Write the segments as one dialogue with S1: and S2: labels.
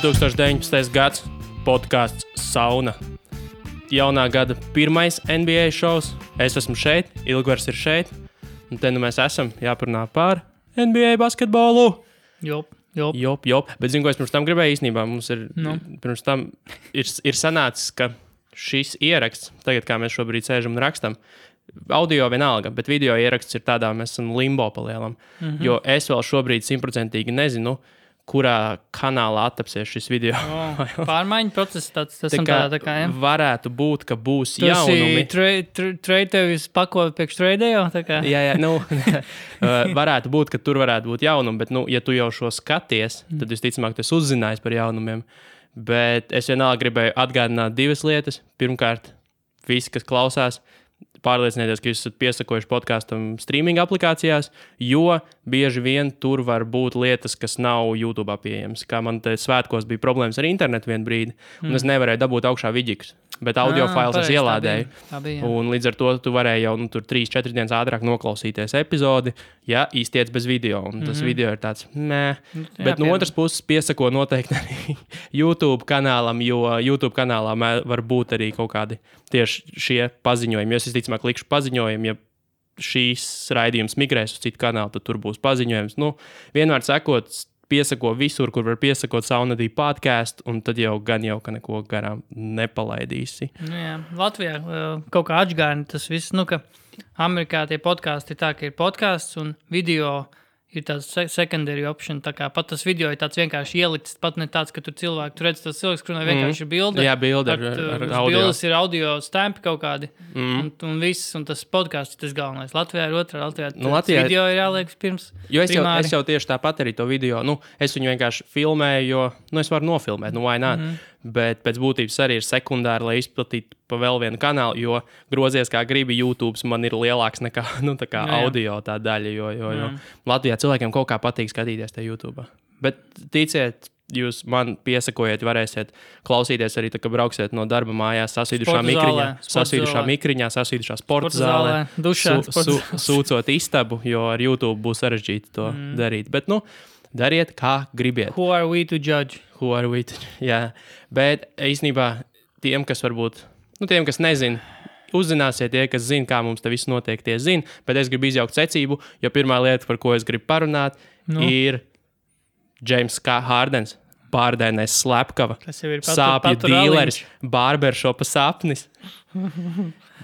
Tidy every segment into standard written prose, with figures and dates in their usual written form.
S1: 2019. gads podcasts Sauna. Jaunā gada pirmais NBA šovs. Es esmu šeit, Ilgvars ir šeit. Un te nu mēs esam jāparunā par NBA basketbolu.
S2: Jop.
S1: Bet zinu, ko es pirms tam gribēju īstenībā. Mums ir, pirms tam ir sanācis, ka šis ieraksts, tagad kā mēs šobrīd sēžam un rakstam, audio vienalga, bet video ieraksts ir tādā, mēs esam limbo palielam. Jo es vēl šobrīd 100% nezinu, kurā kanālā attapsies šis video.
S2: Pārmaiņu process tāds
S1: tā kā ja? Varētu būt, ka būs jaunumi.
S2: Trade tevis pakot priekš trade jau?
S1: Jā, varētu būt, ka tur varētu būt jaunumi, bet, ja tu jau šo skaties, tad visticamāk tu esi uzzinājis par jaunumiem. Bet es vienalga gribēju atgādināt divas lietas. Pirmkārt, visi, kas klausās, pārliecinieties, ka jūs esat piesakojuši podkastam streaming aplikācijās, jo bieži vien tur var būt lietas, kas nav YouTube pieejamas. Kā man te svētkos bija problēmas ar internetu vienu brīdi, un es nevarēju dabūt augšā vidžikus, bet audio fails es ielādēju. Tā bija. Un līdz ar to tu varēji jau tur 3-4 dienas ātrāk noklausīties epizodi, ja iztiec bez video. Un tas video ir tāds, Bet no otras puses piesako noteikti arī YouTube kanālam, jo YouTube kanālā var būt arī kaut kādi tieši šie paziņojumi. Es visticamāk likšu paziņojumu, ja šīs raidījums migrēs uz citu kanālu, tad tur būs paziņojums. Vienmēr sakot, piesako visur, kur var piesakot Saunadī podcastu, un tad jau ka neko garām nepalaidīsi.
S2: Jā, Latvijā kaut kā atžgāni tas viss, ka Amerikā tie podkasti ir tā, ka ir podcasts un video ir tāds secondary option, tā kā pat tas video ir tāds vienkārši ielikts, pat ne tāds, ka tur cilvēki, tu redz tas cilvēks, kur vienkārši ir bilde.
S1: Jā, bilde ar audio.
S2: Bildes ir audio stampi kaut kādi, un viss, un tas podcasts ir tas galvenais. Latvijā ir otrā, Latvijā video ir jāliek pirms primāri.
S1: Es jau tieši tāpat arī to video, es viņu vienkārši filmēju, jo, es varu nofilmēt, why not? Bet pēc būtības arī ir sekundāri, lai izplatītu pa vēl vienu kanālu, jo grozies kā gribi, YouTube man ir lielāks nekā audio tā daļa, jo Latvijā cilvēkiem kaut kā patīk skatīties te YouTube. Bet ticiet, jūs man piesakojiet, varēsiet klausīties arī, kad brauksiet no darba mājās, sasvīdušā mikriņā, sasvīdušā sporta zālē,
S2: dušā,
S1: sūcot istabu, jo ar YouTube būs sarežģīti to darīt. Bet, dariet, kā gribiet.
S2: Who are we to judge?
S1: Jā, bet īstenībā tiem, kas varbūt, tiem, kas nezin, uzzināsiet tie, kas zina, kā mums te viss notiek, tie zina, bet es gribu izjaukt secību, jo pirmā lieta, par ko es gribu parunāt, ir James Hardens, pārdēnais slepkava, sāpju dīleris, barberšopa sapnis.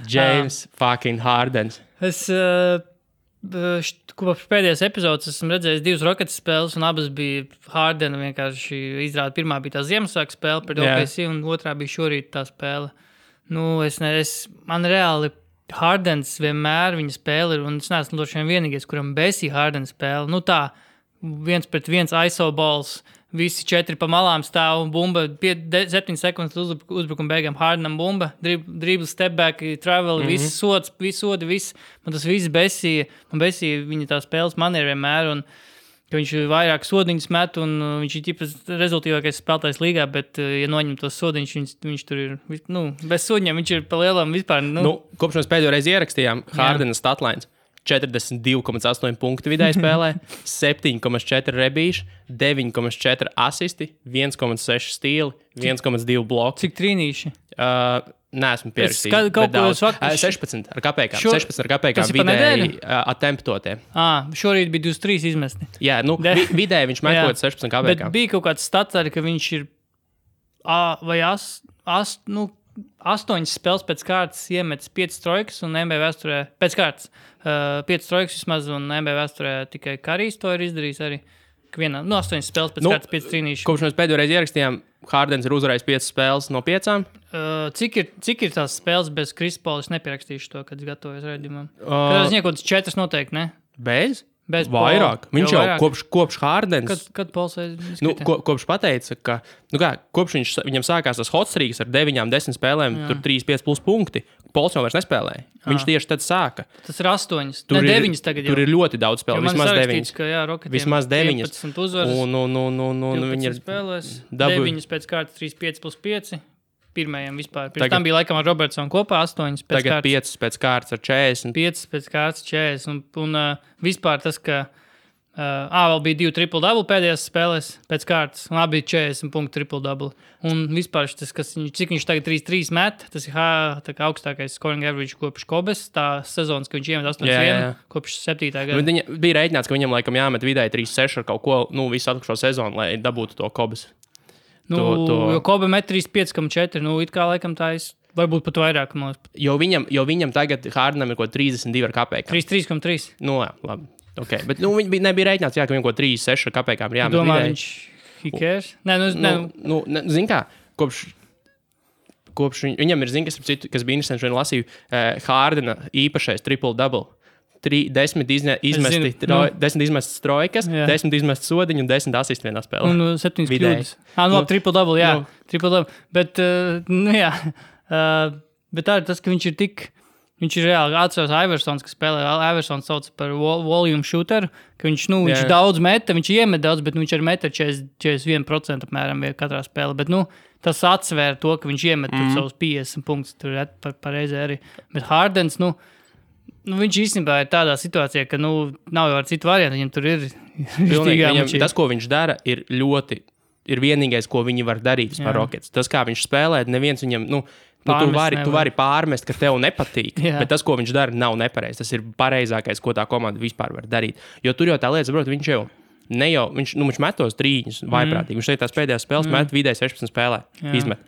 S1: James fucking Hardens.
S2: Kopš pēdējās epizodes esmu redzējis 2 Rockets spēles, un abas bija Hardena vienkārši izrāda. Pirmā bija tā Ziemassvētku spēle pret OKC, un otrā bija šorīt tā spēle. Man reāli Hardens vienmēr viņa spēle ir, un es neesmu droši vien vienīgais, kuram besī Hardens spēle. Tā, 1-pret-1 ISO balls, visi 4 pa malām stāv, bumba, 7 sekundes uzbrukuma beigām, Hardenam bumba, dribble, step back, travel, visi sodi, viss. Man tas viss besīja. Man besīja viņa tā spēles maniera vienmēr, un ka viņš vairāk sodiņus met, un viņš ir ķipas rezultīvākais spēlētājs līgā, bet, ja noņem tos sodiņus, viņš tur ir, bez sodiņiem, viņš ir pa lielam vispār.
S1: Kopš mēs pēdējo reizi ierakstījām Hardena statlines. 42,8 punktu vidēji spēlē, 7,4 rebīši, 9,4 asisti, 1,6 stīli, 1,2 bloki.
S2: Cik trīnīši?
S1: Neesmu pierakstījis. 16 ar kapēkām vidēji attemptotie.
S2: Šorīt bija 23 izmesti.
S1: Jā, vidēji viņš metot 16 kapēkām.
S2: Bet bija kaut kāds stats arī, ka viņš ir vai 8 spēles pēc kārtas iemetis 5 trojkas, un NBA vēsturē pēc kārtas 5 trojkas vismaz, un NBA vēsturē tikai Karijs to ir izdarījis arī. 8 spēles pēc kārtas 5 trīnīši.
S1: Kopš mēs pēdējo reizi ierakstījām, Hardens ir uzvarējis 5 spēles no 5.
S2: Cik ir tās spēles bez Krisa Paula? Es nepierakstīšu to, kad gatavojas raidījumam. Kad es kaut 4 noteikti, ne?
S1: Bez vairāk. Viņš jau kopš Hardens.
S2: Kad Pauls
S1: kopš pateica, ka kopš viņam sākās tas hot streaks ar 9-10 spēlēm, tur 3-5 plus punkti, Pauls jau vairs nespēlēja. Viņš tieši tad sāka.
S2: Tas ir 8. Ne 9 tagad jau.
S1: Tur ir ļoti daudz spēlēm. Vismaz 9. Vismaz 9.
S2: 15 uzvaras.
S1: Un viņi ir
S2: spēlēs. 9 pēc kārtas 3-5 plus 5. Pirmajam vispār. Pirms tam bija laikam ar Robertsonu kopā 8 pēc
S1: tagad kārtas. 5 pēc kārtas ar 40.
S2: 5 pēc kārtas 40. Un vispār tas, ka Vēl bija 2 triple-double pēdējās spēlēs pēc kārtas, un abi 40 punktu triple-double. Un vispār tas, cik viņš tagad 3-3 met, tas ir tā kā augstākais scoring average kopš Kobes, tā sezonas, ka viņš iemet 8-1 kopš 7. gada.
S1: Viņa bija rēķināts, ka viņam laikam jāmet vidēji 3-6 ar kaut ko, visu atlikušo sezonu, lai dabūtu to Kobes.
S2: Jo Kobe met 3-5,4, it kā laikam tā ir, varbūt pat vairāk.
S1: Jo viņam tagad Hardenam ir ko 32 ar kapēkām.
S2: 3,3.
S1: Labi. Okay. Bet viņi nebija rēķināts, ka viņam ko 3-6 kapēkām ir jāmet.
S2: Domā, viņš hikērs?
S1: Zin kā, kopš viņam ir, kas bija interesanti, šodien lasīju, Hardena īpašais triple-double. 10 izmestas trojkas, 10 izmestas sodiņu un 10 asistu vienā spēlē.
S2: Un 7 kļūdas. Triple-double, jā. Triple-double. Bet, bet tā ir tas, ka viņš ir tik... Viņš ir reāli atceros Iversons, kas spēlē. Iversons sauc par volume shooter, ka viņš daudz meta, viņš iemet daudz, bet viņš arī meta 41% apmēram katrā spēlē. Bet, tas atsvēra to, ka viņš iemet savus 50 punktus, tur pareizi arī. Bet Hardens, viņš īstenībā ir tādā situācijā, ka, nav jau ar citu variantu, viņam tur ir
S1: pilnīgi. Tas, ko viņš dara, ir vienīgais, ko viņi var darīt par Rockets. Tas, kā viņš spēlē, neviens viņam, tu vari pārmest, ka tev nepatīk, bet tas, ko viņš dara, nav nepareizi. Tas ir pareizākais, ko tā komanda vispār var darīt. Jo tur jau tā lieta, saprot, viņš jau viņš metos trīņus vaiprātīgi. Viņš teikt, tās pēdējās spēles met vidēji 16 spēlē. Izmet.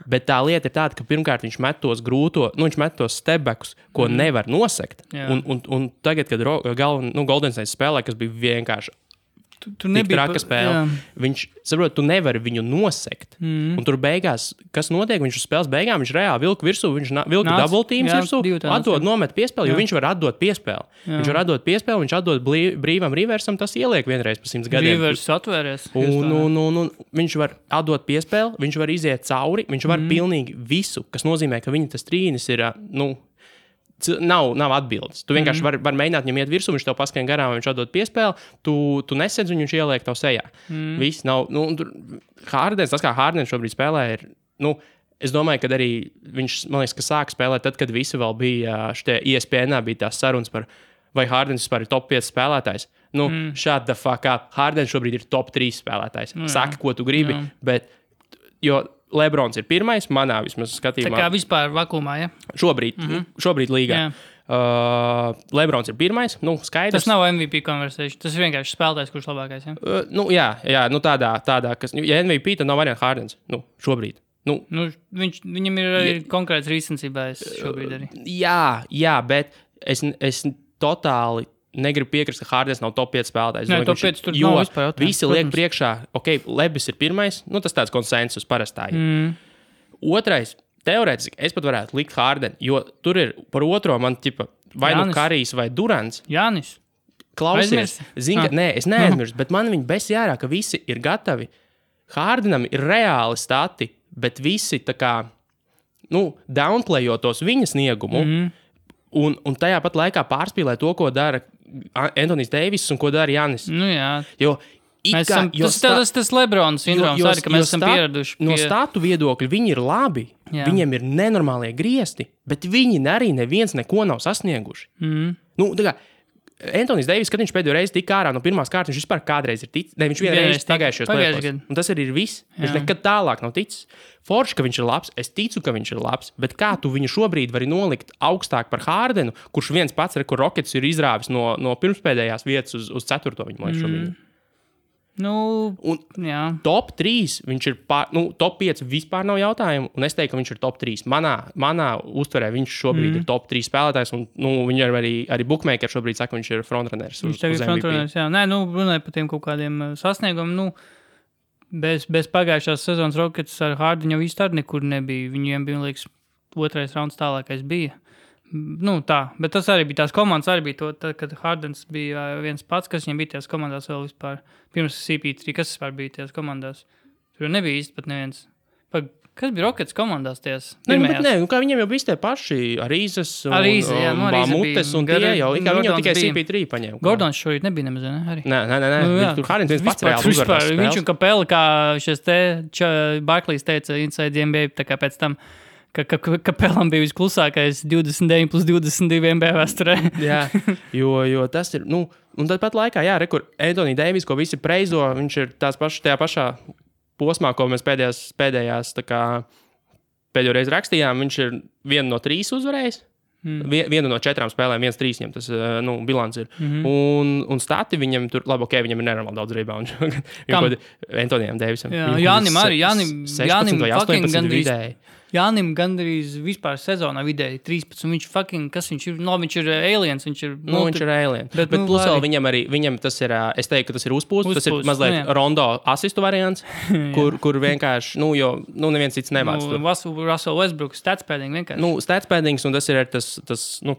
S1: Bet tā lieta ir tāda, ka pirmkārt viņš met tos viņš met tos stepbackus, ko nevar nosekt. Un tagad, kad Golden State spēlē, kas bija vienkārši tur nebija traka spēle. Viņš, saprot, tu nevari viņu nosekt. Un tur beigās, kas notiek, viņš uz spēles beigām, viņš reāli vilka virsū, viņš vilka double teams virsū, nomet piespēli, jo viņš var atdot piespēli. Viņš var atdot piespēli, viņš atdot brīvam Riversam, tas ieliek vienreiz pa 100 gadiem.
S2: Rivers atvēries.
S1: Un viņš var atdot piespēli, viņš var iziet cauri, viņš var pilnīgi visu, kas nozīmē, ka viņa tas trīnis ir, Nav atbildes. Tu vienkārši var mēģināt viņam iet virsū, viņš tev paskrien garām, viņš atdod piespēli, tu nesedz viņu, viņš ieliek tev sejā. Viss nav, Hardens, tas kā Hardens šobrīd spēlē ir, es domāju, ka arī viņš, man liekas, ka sāk spēlēt tad, kad visi vēl bija, šitie ESPN bija tās sarunas par, vai Hardens vispār ir top 5 spēlētājs. Shut the fuck up. Hardens šobrīd ir top 3 spēlētājs. Saki, ko tu gribi, bet, jo Lebrons ir pirmais, manā vismaz skatījumā.
S2: Tā kā vispār vakumā, ja?
S1: Šobrīd līgā. Lebrons ir pirmais, skaidrs.
S2: Tas nav MVP conversation, tas ir vienkārši spēlētājs, kurš labākais,
S1: ja? Tādā, kas, ja MVP, tad nav variants Hardens, šobrīd.
S2: Viņam ir arī konkrēts rīcensībā šobrīd arī.
S1: Jā, bet es totāli negribu piekrist, ka Hardens nav top 5 spēlētājs.
S2: Nē, top 5 tur nav vispār jautājums.
S1: Visi liek priekšā, Lebis ir pirmais, tas tāds konsensus parastā. Otrais, teorētiski, es pat varētu likt Harden, jo tur ir par otro man vai Karijs vai Durants.
S2: Jānis.
S1: Klausies, es neaizmirstu, bet man viņi besi ārā, ka visi ir gatavi. Hardenam ir reāli stati, bet visi tā kā, downplayot tos viņa sniegumu, un tajā pat laikā pārspīlē to, ko dara Anthony's Davis un ko dara Jānis. Jo
S2: tas Lebrons sindroms arī, ka mēs esam pieraduši.
S1: No statu viedokļa viņi ir labi, viņiem ir nenormālie griesti, bet viņi arī neviens neko nav sasnieguši. Tā kā Anthony's Davis, kad viņš pēdējo reizi tika ārā no pirmās kārtas, viņš vispār kādreiz ir ticis. Viņš vienreiz pagājušajos plēsos. Un tas arī ir viss. Viņš nekad tālāk nav ticis. Forši, ka viņš ir labs, es ticu, ka viņš ir labs, bet kā tu viņu šobrīd vari nolikt augstāk par Hardenu, kurš viens pats, kur Rockets ir izrāvis no pirmspēdējās vietas uz 4. viņu šobrīd. Top 3 viņš ir top 5 vispār nav jautājumu, un es teiktu, ka viņš ir top 3. Manā uztverē viņš šobrīd ir top 3 spēlētājs, un viņi arī bookmaker šobrīd saka, viņš ir frontrunners.
S2: Viņš tagad ir frontrunners, jā. Nē, runāja par tiem kaut kādiem sasniegumiem, bez pagājušās sezonas Rockets ar Hardenu jau īsti arī nekur nebija. Viņiem bija, liekas, 2. rauns tālākais bija. Tā, bet tas arī bija tās komandas, arī bija to, tad, kad Hardens bija viens pats, kas viņam bija tajās komandās vēl vispār, pirms CP3, kas vispār bija tajās komandās. Tur nebija īsti pat neviens. Kas bija Rockets komandās tajās pirmajās?
S1: Kā viņiem jau bija tie paši Arīzes un Bamutes un tie jau, kā viņam tikai CP3 paņēma.
S2: Gordons šorīt nebija nemaz, ne? Arī.
S1: Nē. Tur Hardens viens pats reāli uzvarās spēles.
S2: Viņš un Kapela, kā šies Barclays teica Inside NBA, tā kā pēc tam, ka Pelam bija visklusākais 29+22 NBA vēsturē.
S1: Jā, jo tas ir, un tad pat laikā, jā, kur Anthony Davis, ko visi preizo, viņš ir tajā pašā posmā, ko mēs pēdējās pēdējo reizi rakstījām, viņš ir 1 no 3 uzvarējis. Vienu no 4 spēlēm, 1-3 viņam tas bilants ir. Un stati viņam tur, labi, viņam ir nenormāli daudz reboundu. Antonijam Davisam.
S2: Jānim arī,
S1: Jānim vai 18 vidēji.
S2: Jānim gandrīz vispār sezonā vidēji 13. Viņš fucking, kas viņš ir? Viņš ir aliens, viņš ir...
S1: viņš ir alien. Bet plus vēl viņam tas ir, es teiktu, ka tas ir uzpūsts. Tas ir mazliet Rondo asistu variants, kur vienkārši, jo neviens cits nemāc.
S2: Russell Westbrook, stats padding vienkārši.
S1: Stats paddings, un tas ir tas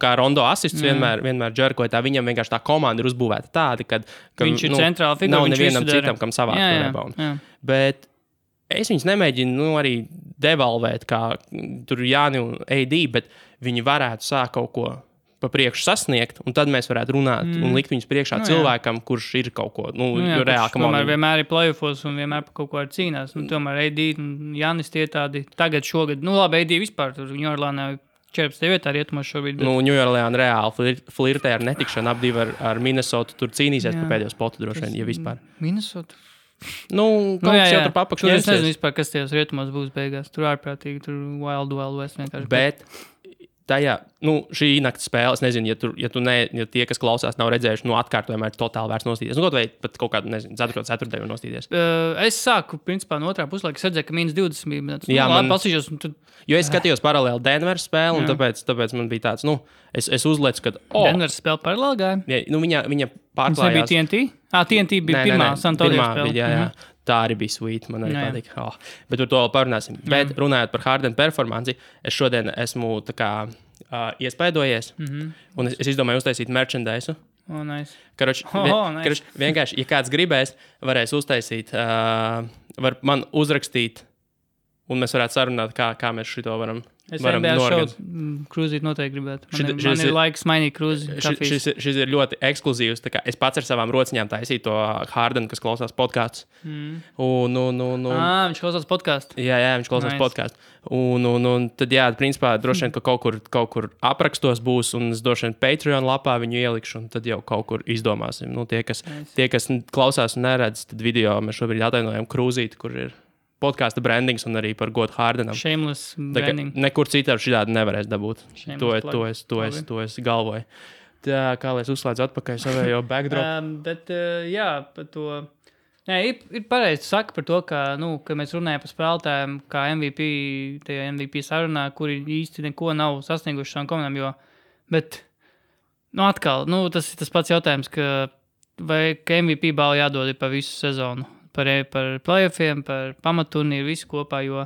S1: kā Rondo asists vienmēr džerkoja tā. Viņam vienkārši tā komanda ir uzbūvēta tāda, ka
S2: viņš ir centrāla figura.
S1: Nav nevienam citam, kam savākt to reboundu. Bet es viņus nemēģinu arī devalvēt, kā tur Jāni un AD, bet viņi varētu sākt kaut ko pa priekšu sasniegt, un tad mēs varētu runāt un likt viņus priekšā cilvēkam, kurš ir kaut ko reāli.
S2: Tomēr vienmēr ir playoffos un vienmēr par kaut ko ar cīnās. Tomēr AD un Jānis tie tādi tagad šogad. Labi, AD vispār tur Ņujorlānā 14. vietā rietumos šobrīd. Bet...
S1: Ņujorlāna reāli flirtē ar netikšanu, apdivi ar Minnesotu, tur cīnīsies par pēdējo spotu droši vien, ja vispār.
S2: Minnesota?
S1: Kaut kas jau tur papakšu.
S2: Es nezinu vispār, kas tajos rietumos būs beigās. Tur ārprātīgi, tur Wild West vienkārši.
S1: Bet tajā, šī nakts spēle, es nezinu, ja tie, kas klausās, nav redzējuši, atkārtojumā ir totāli vērts nostīties. Kaut vai pat kaut kādu, nezinu, 4. nostīties.
S2: Es sāku, principā, no otrā puslaika, es redzēju, ka -20 bija.
S1: Jā, man
S2: pasīšos.
S1: Jo es skatījos paralēli Denveras spēli, un tāpēc man bija tāds, es uzlecu, ka...
S2: Denveras spēle paralēli gāja?
S1: Jā, viņa pārklājās.
S2: Tas nebija TNT? TNT bija pirmā Santonio spēle.
S1: Jā. Tā arī bija sweet, man arī patīk. Bet par to vēl parunāsim. Bet runājot par Harden performanci, es šodien esmu iespaidojies, un es izdomāju uztaisīt merchandise.
S2: Nice.
S1: Nice. Vienkārši, ja kāds gribēs, varēs uztaisīt, var man uzrakstīt, un mēs varētu sarunāt, kā mēs šito varam
S2: norganizēt. Krūzīt noteikti gribētu. Man ir laiks mainīt krūzi.
S1: Šis ir ļoti ekskluzīvs. Es pats ar savām rociņām taisīju to Hardenu, kas klausās podkāstus.
S2: Viņš klausās podkāstu.
S1: Jā, viņš klausās podkāstu. Un tad, jā, principā, droši vien, ka kaut kur aprakstos būs, un es droši vien Patreon lapā viņu ielikšu, un tad jau kaut kur izdomāsim. Tie, kas klausās un neredz, tad video mēs šobrīd atainojam krūzīti, kur ir podkāsta brandings un arī par godu Hardenam.
S2: Shameless branding.
S1: Nekur citādi šitādi nevarēs dabūt. To es galvoju. Tā, kā lai es uzslēdzu atpakaļ savējo backdrop.
S2: Bet, jā, par to... Nē, ir pareizi saka par to, ka mēs runājam par spēlētājiem, kā tajā MVP sarunā, kuri īsti neko nav sasnieguši savām komandām, bet, atkal, tas ir tas pats jautājums, ka MVP balvu jādod pa visu sezonu. Par playoffiem, par pamaturnīru, visu kopā, jo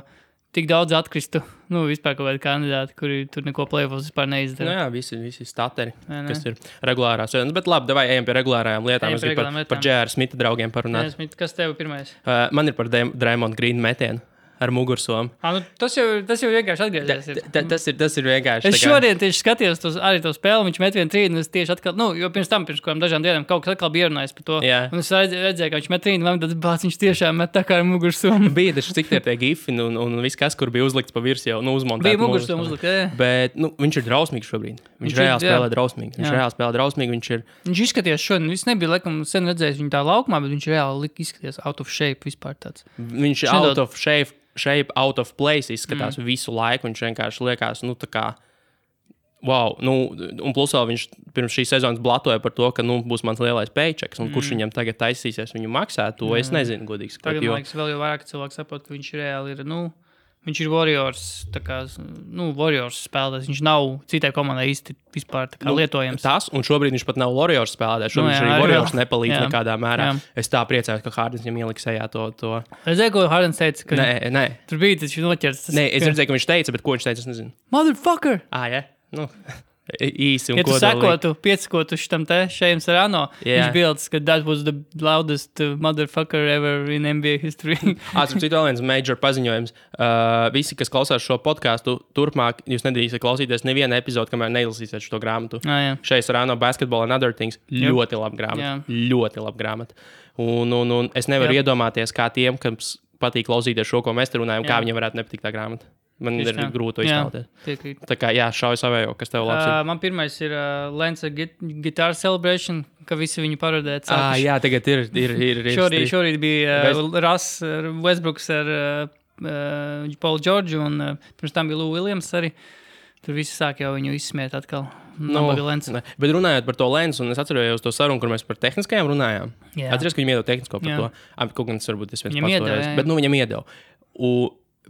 S2: tik daudz atkristu, vispār kaut kādi kandidāti, kuri tur neko playoffos vispār neizdara.
S1: Jā, visi stateri, kas ir regulārās. Bet labi, davai ejam pie regulārajām lietām. Es gribu par J.R. Smita draugiem parunāt.
S2: Kas tev pirmais?
S1: Man ir par Draymond Green metienu ar mugursomu.
S2: Tas jau vienkārši atgriezies.
S1: Tas ir vienkārši.
S2: Es šodien tieši skatījos arī to spēli, viņš met 1-3, un es tieši atkal, jo pirms kādām dažām dienām kaut kas atkal bija runājis par to. Jā. Un es redzēju, ka viņš met 3, un tad viņš tiešām met tā kā ar mugursomu.
S1: Bija taču cik tie gifi, un viss, kas kur bija uzlikts pa virs jau, uzmontēts.
S2: Bija mugursomu uzlikt, jā.
S1: Bet, viņš ir drausmīgs šobrīd. Viņš reāli spēlē drausmīgi.
S2: Viņš izskatījās šodien, viss nebija, laikam, sen redzējis viņu tā laukumā, bet viņš reāli izskatījās out of shape vispār tāds.
S1: Viņš shape out of place izskatās visu laiku. Viņš vienkārši liekas, tā kā, wow. Un plus vēl viņš pirms šīs sezonas blatoja par to, ka, būs mans lielais paychecks, un kurš viņam tagad taisīsies viņu maksāt, to es nezinu, godīgi sakot.
S2: Tagad, man liekas, vēl jau vairāk cilvēku saprot, ka viņš reāli ir, viņš ir Warriors, Warriors spēlētājs. Viņš nav citai komandai īsti vispār lietojams.
S1: Tas, un šobrīd viņš pat nav Warriors spēlētājs. Šobrīd viņš arī Warriors nepalīdz nekādā mērā. Jā. Es tā priecājos, ka Hardens viņam ieliks sejā to.
S2: Redzēju, ko Hardens teica, ka
S1: nē.
S2: Tur bija taču noķerts.
S1: Nē, es redzēju, ka viņš teica, bet ko viņš teica, es nezinu.
S2: Motherfucker!
S1: Jā? Īsi un
S2: kodolīgi. Ja tu piesakotu šitam te Šejam Sarano, viņš bildes, ka that was the loudest motherfucker ever in NBA history.
S1: Starp citu vēl viens major paziņojums. Visi, kas klausās šo podcastu, turpmāk jūs nedrīkstat klausīties nevienu epizodu, kamēr neizlasīsiet šo grāmatu. Šejam Sarano Basketball and Other Things. Ļoti laba grāmata. Ļoti laba grāmata. Un es nevaru iedomāties, kā tiem, kas patīk klausīties šo, ko mēs te runājam, kā viņiem varētu nepatikt tā grāmata. Man ir grūti to iztēloties. Tā kā, šauj savējo, kas tev labs ir.
S2: Man pirmais ir Lance Guitar Celebration, ka visi viņu parodēt.
S1: Jā, tagad ir.
S2: Šorīt bija Russ Westbrooks ar Paul George, un pirms tam bija Lou Williams arī. Tur visi sāk jau viņu izsmiet atkal.
S1: Bet runājot par to lensu, un es atcerējos to sarunu, kur mēs par tehniskajām runājām. Atceries, ka viņam iedeva tehnisko par to. Kaut gan tas varbūt es viens pats toreiz. Bet viņam iedeva.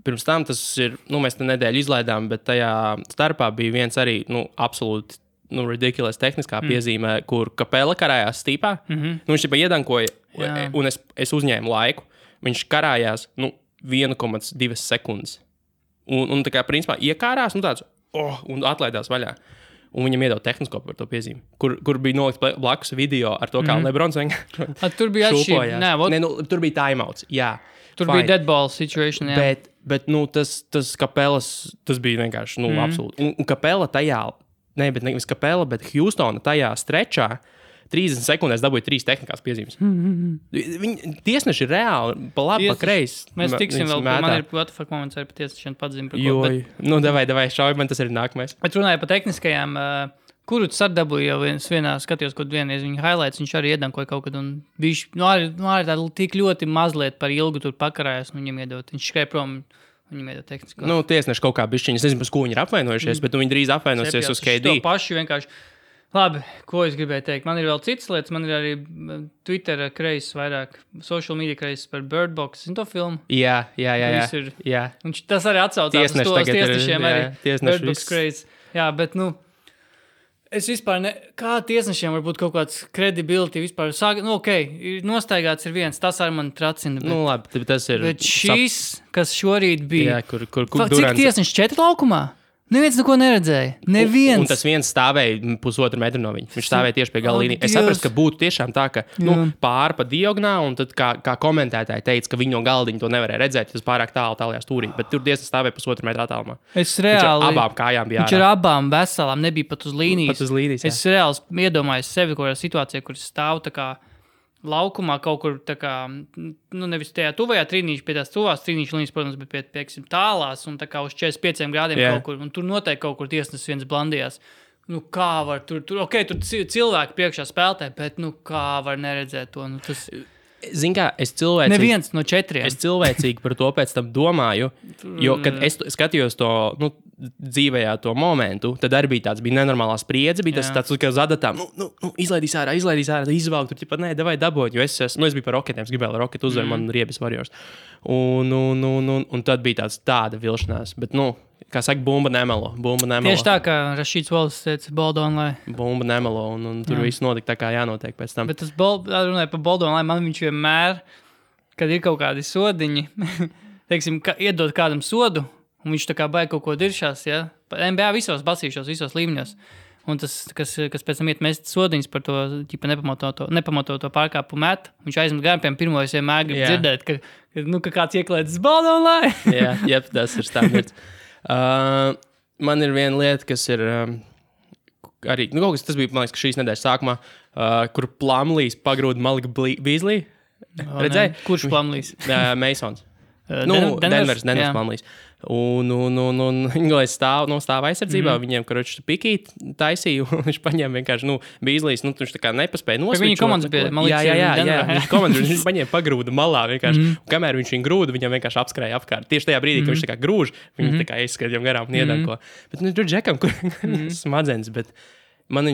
S1: Pirms tam tas ir, mēs te nedēļu izlaidām, bet tajā starpā bija viens arī, absolūti, ridiculous tehniskā piezīmē, kur Kapela karājās stīpā. Viņš tikai iedankoja, un es uzņēmu laiku. Viņš karājās, 1,2 sekundes. Un tā kā, principā, iekārās, tāds, un atlaidās vaļā. Un viņam iedod tehnisko par to piezīmi, kur bija nolikts blakus video ar to, kā Lebrons vienkārši
S2: tur bija atšķirība.
S1: Tur bija timeouts, jā.
S2: Tur bija deadball situation, jā.
S1: Bet tas Kapelas, tas bija vienkārši, absolūti. Un Kapela tajā, nevis Kapela, bet Houstona tajā strečā 30 sekundēs dabūja 3 tehniskās piezīmes. Viņi tiesneši ir reāli, pa labi, pa kreisi.
S2: Mēs tiksim vēl, man ir what the fuck moments arī pa tiesnešiem pazīmi par ko.
S1: Davai, šauj, man tas ir nākamais.
S2: Bet runāju par tehniskajām, kuru tu sardabūji jau vienā skatījos, kaut vienreiz viņa highlights, viņš arī iedankoja kaut kad, un arī tā tik ļoti mazliet par ilgu tur pakarājās, un viņam iedot, viņš skrēja prom. Viņam iedod tehnisko.
S1: Tiesneši kaut kā bišķiņi, es nezinu, par ko viņi ir apvainojušies, bet viņi drīz apvainosies uz KD.
S2: To paši vienkārši. Labi, ko es gribēju teikt? Man ir vēl citas lietas, man ir arī Twitter kreis vairāk, social media kreis par Bird Box. Zini to filmu?
S1: Jā.
S2: Un tas arī atsaucās uz tos tiesnešiem arī. Bird Box kreis. Jā, bet, es vispār kā tiesnešiem var būt kaut kāds credibility vispār. Nostaigāts ir viens, tas arī man tracina.
S1: Labi, tas ir.
S2: Bet šīs, kas šorīt bija.
S1: Jā, kur
S2: cik tiesneši 4 laukumā? Neviens neko neredzēja. Neviens.
S1: Un tas viens stāvēja 1,5 metru no viņa. Viņš stāvēja tieši pie gala līnijas. Es saprotu, ka būtu tiešām tā, ka pāri pa diagonāli, un tad kā komentētāji teica, ka viņi no galdiņa to nevarēja redzēt, tas pārāk tālajā stūrī. Bet tur tiesneši stāvēja 1,5 metru attālumā.
S2: Es reāli.
S1: Abām kājām bija.
S2: Viņš ar abām veselām nebija pat uz līnijas.
S1: Pat uz līnijas, jā.
S2: Es reāli iedomājos sevi kaut kādā situācijā, kur stāv tā kā laukumā kaut kur tā kā, nevis tajā tuvajā trīnīši, pie tās tuvās trīnīšu līnijas, protams, bet pie tālās un tā kā uz 45 grādiem kaut kur, un tur noteikti kaut kur tiesnesis viens blandījās. Kā var tur cilvēki priekšā spēlē, bet kā var neredzēt to, tas...
S1: Zini kā, es cilvēcīgi...
S2: Neviens no 4.
S1: Es cilvēcīgi par to pēc tam domāju, jo, kad es skatījos to, dzīvējā to momentu, tad arī bija nenormālā spriedze, bija tas tāds, kā uz adatām, izlaidīs ārā, izvalk, tur ķipa, davai daboņ, jo es biju par Rocketiem, es gribēju Rocket uzvar, man riebis Warriors. Un tad bija tāda vilšanās, bet, kā saka, bumba nemelo.
S2: Tieši tā, kā Rašīts Wallace teica, Boldonlai.
S1: Bumba nemelo, un tur viss notika tā, kā jānotiek pēc tam.
S2: Bet tas runāja par Boldonlai, man viņš vienmēr, kad ir kaut kādi sodiņi, teiksim, iedod kādam sodu, un viņš tā kā baigi kaut ko diršās, ja? NBA visos basīšos, visos līmeņos. Un tas, kas pēc tam iet mest sodiņas par to, nepamatoto pārkāpu met, viņš aizmet gan, piemēram, pirmo es vienmēr gribu dzirdēt, ka kāds ieklēdz Boldonlai.
S1: Jā, tas ir standarts. Man ir viena lieta, kas ir arī, kaut kas tas bija, man liekas, ka šīs nedēļas sākumā, kur Plumlees pagrūda Malik Beasley. Redzēji?
S2: Kurš Plumlees?
S1: Masons. Denvers Plumlees. Un viņi stāv aizsardzībā, viņiem, karoči, pikīt taisīja, un viņš paņēma vienkārši, Beasleys, viņš tā kā nepaspēja nosvičot.
S2: Viņa komandas bija, man liekas,
S1: Jā, viņš paņēma pagrūda malā vienkārši, un kamēr viņš viņu grūda, viņam vienkārši apskrēja apkārt. Tieši tajā brīdī, kad viņš tā kā grūž, viņi tā kā aizskrēja viņam garām un iedanko. Bet, tur Džekam, kur smadzenes, bet man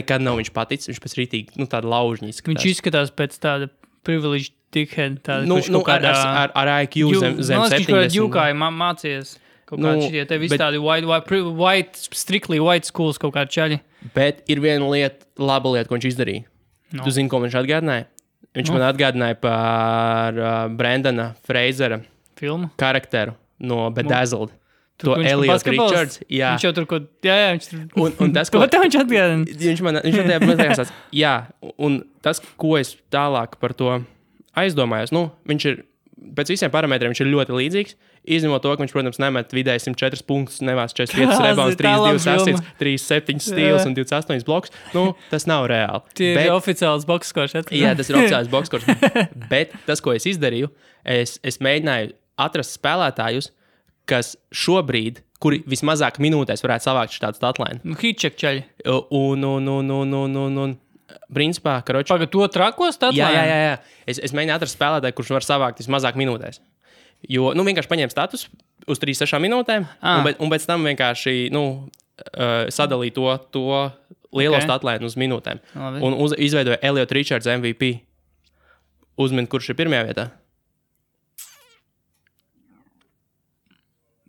S1: nekad nav viņš paticis, viņš pēc rītīgi, tāda laužņa izskatās.
S2: Viņš izskatās pēc tāda privileged dickhead, kurš kaut
S1: kādā... Ar IQ zem 70.
S2: Viņš jūkāja mācījies kaut kādi šitie, te visi tādi strictly white schools kaut kādi čaļi.
S1: Bet ir viena laba lieta, ko viņš izdarīja. Tu zini, ko viņš atgādināja? Viņš man atgādināja par Brendana Frasera
S2: filmu
S1: karakteru no Bedazzled. To Elliot Richards. Jā.
S2: Viņš jau tur ko... Jā, viņš tur...
S1: Un tas, ko...
S2: Ko viņš atgādina?
S1: Viņš atgādinās. Jā, un tas, ko es tālāk par to aizdomājos, viņš ir, pēc visiem parametriem viņš ir ļoti līdzīgs, izņemot to, ka viņš, protams, nemet vidēji 104 punktus, nevās 45 rebounds, 32 asits, 37 stils un 28 bloks. Tas nav reāli.
S2: Tie ir oficiāls bokskors.
S1: Jā, tas ir oficiāls bokskors. Bet tas, ko es izdarīju, es mēģināju atrast spēlētājus, kas šobrīd, kuri vismazāk minūtēs varētu savākt šādu statlaini.
S2: Hitcheck čaļi.
S1: Un principā, karoči...
S2: Pagad to trako statlaini?
S1: Jā. Es mēģinu atrast spēlētāju, kurš var savākt vismazāk minūtēs. Jo, vienkārši paņēma status uz 3-6 minūtēm, un pēc tam vienkārši, sadalīja to lielo statlaini uz minūtēm. Un izveidoja Elliot Richards MVP. Uzmini, kurš ir pirmajā vietā?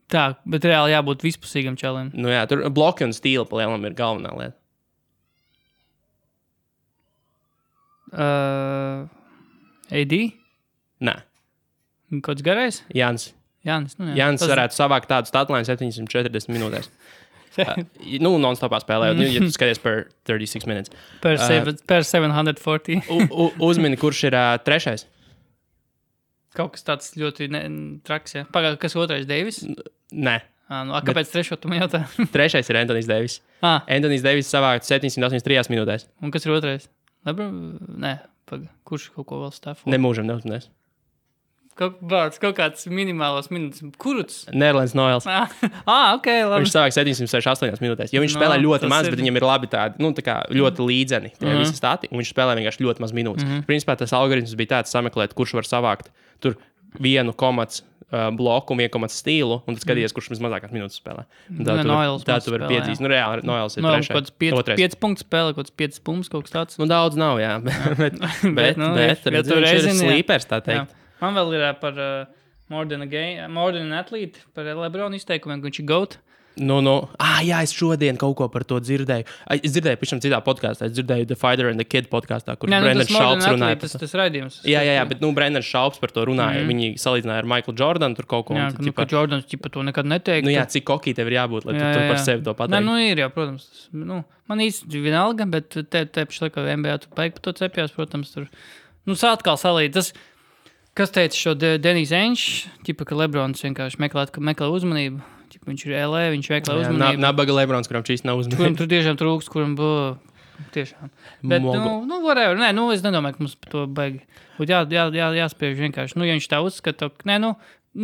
S2: Tā, bet reāli jābūt vispusīgam čalim.
S1: Tur bloki un stīli pa lielam ir galvenā lieta.
S2: AD?
S1: Nē.
S2: Kāds garais?
S1: Jānis.
S2: Jānis
S1: varētu savākt tādu statlaini 740 minūtēs. Non-stopā spēlējot, ja tu skaties per 36 minutes.
S2: Per 740.
S1: Uzmini, kurš ir trešais?
S2: Kaut kas tāds ļoti traks, jā. Pagād, kas otrais, Deivis?
S1: Nē.
S2: Kāpēc trešo tu man jautā?
S1: Trešais ir Anthony's Davis. Anthony's Davis savākt 783 minūtēs.
S2: Un kas ir otrais? Nē, kurš kaut ko vēl stāv?
S1: Nemūžam neuzminēs.
S2: Kaut kāds minimālos minūtes. Kuruts?
S1: Nerlands Noels.
S2: Ok, labi.
S1: Viņš savāk 768 minūtēs. Jo viņš spēlē ļoti maz, bet viņam ir labi tādi, tā kā ļoti līdzeni tie visi stati, un viņš spēlē vienkārši ļoti maz minūtes. Principā tas algoritms bija tāds sameklēt, kurš var savākt tur 1 komats bloku un 1 komats stīlu, un tad skaties, kurš mazākās minūtes spēlē. Tā tu vari piedzīs. Reāli Noels ir trešais.
S2: 5 punktu spēlē, kaut kāds 5 punktus, kaut kas tāds.
S1: Daudz nav, jā. Bet viņš ir slīpers, tā teikt.
S2: Man vēl ir par More Than an Athlete, par LeBron izteikumiem, ka viņš ir GOAT.
S1: Jā, es šodien kaut ko par to dzirdēju. Es dzirdēju pašam citā podkāstā. Es dzirdēju The Fighter and the Kid podkāstā, kur Brendans Šalps runāja.
S2: Tas raidījums.
S1: Jā, bet Brendans Šalps par to runāja. Viņi salīdzināja ar Michaelu Jordanu tur kaut ko.
S2: Jā, ka Jordans to nekad neteiktu.
S1: Cik kokī tev ir jābūt, lai tu par sevi to pateiktu.
S2: Ir, jā, protams. Man īsti vienalga, bet te pašlaik, ka NBA tu paik par to cepjās, protams, tur. Atkal salīt. Kas teica šo Denis Ainge, ka Lebrons vienkārši meklē uzmanību. Viņš ir LA, viņš meklē uzmanību.
S1: Nabaga Lebrons, kuram šīs nav uzmanību.
S2: Kuram tur tiešām trūkst, kuram būtu tiešām. Bet, whatever. Nē, es nedomāju, ka mums par to baigi. Būtu jāspiež vienkārši. Ja viņš tā uzskata,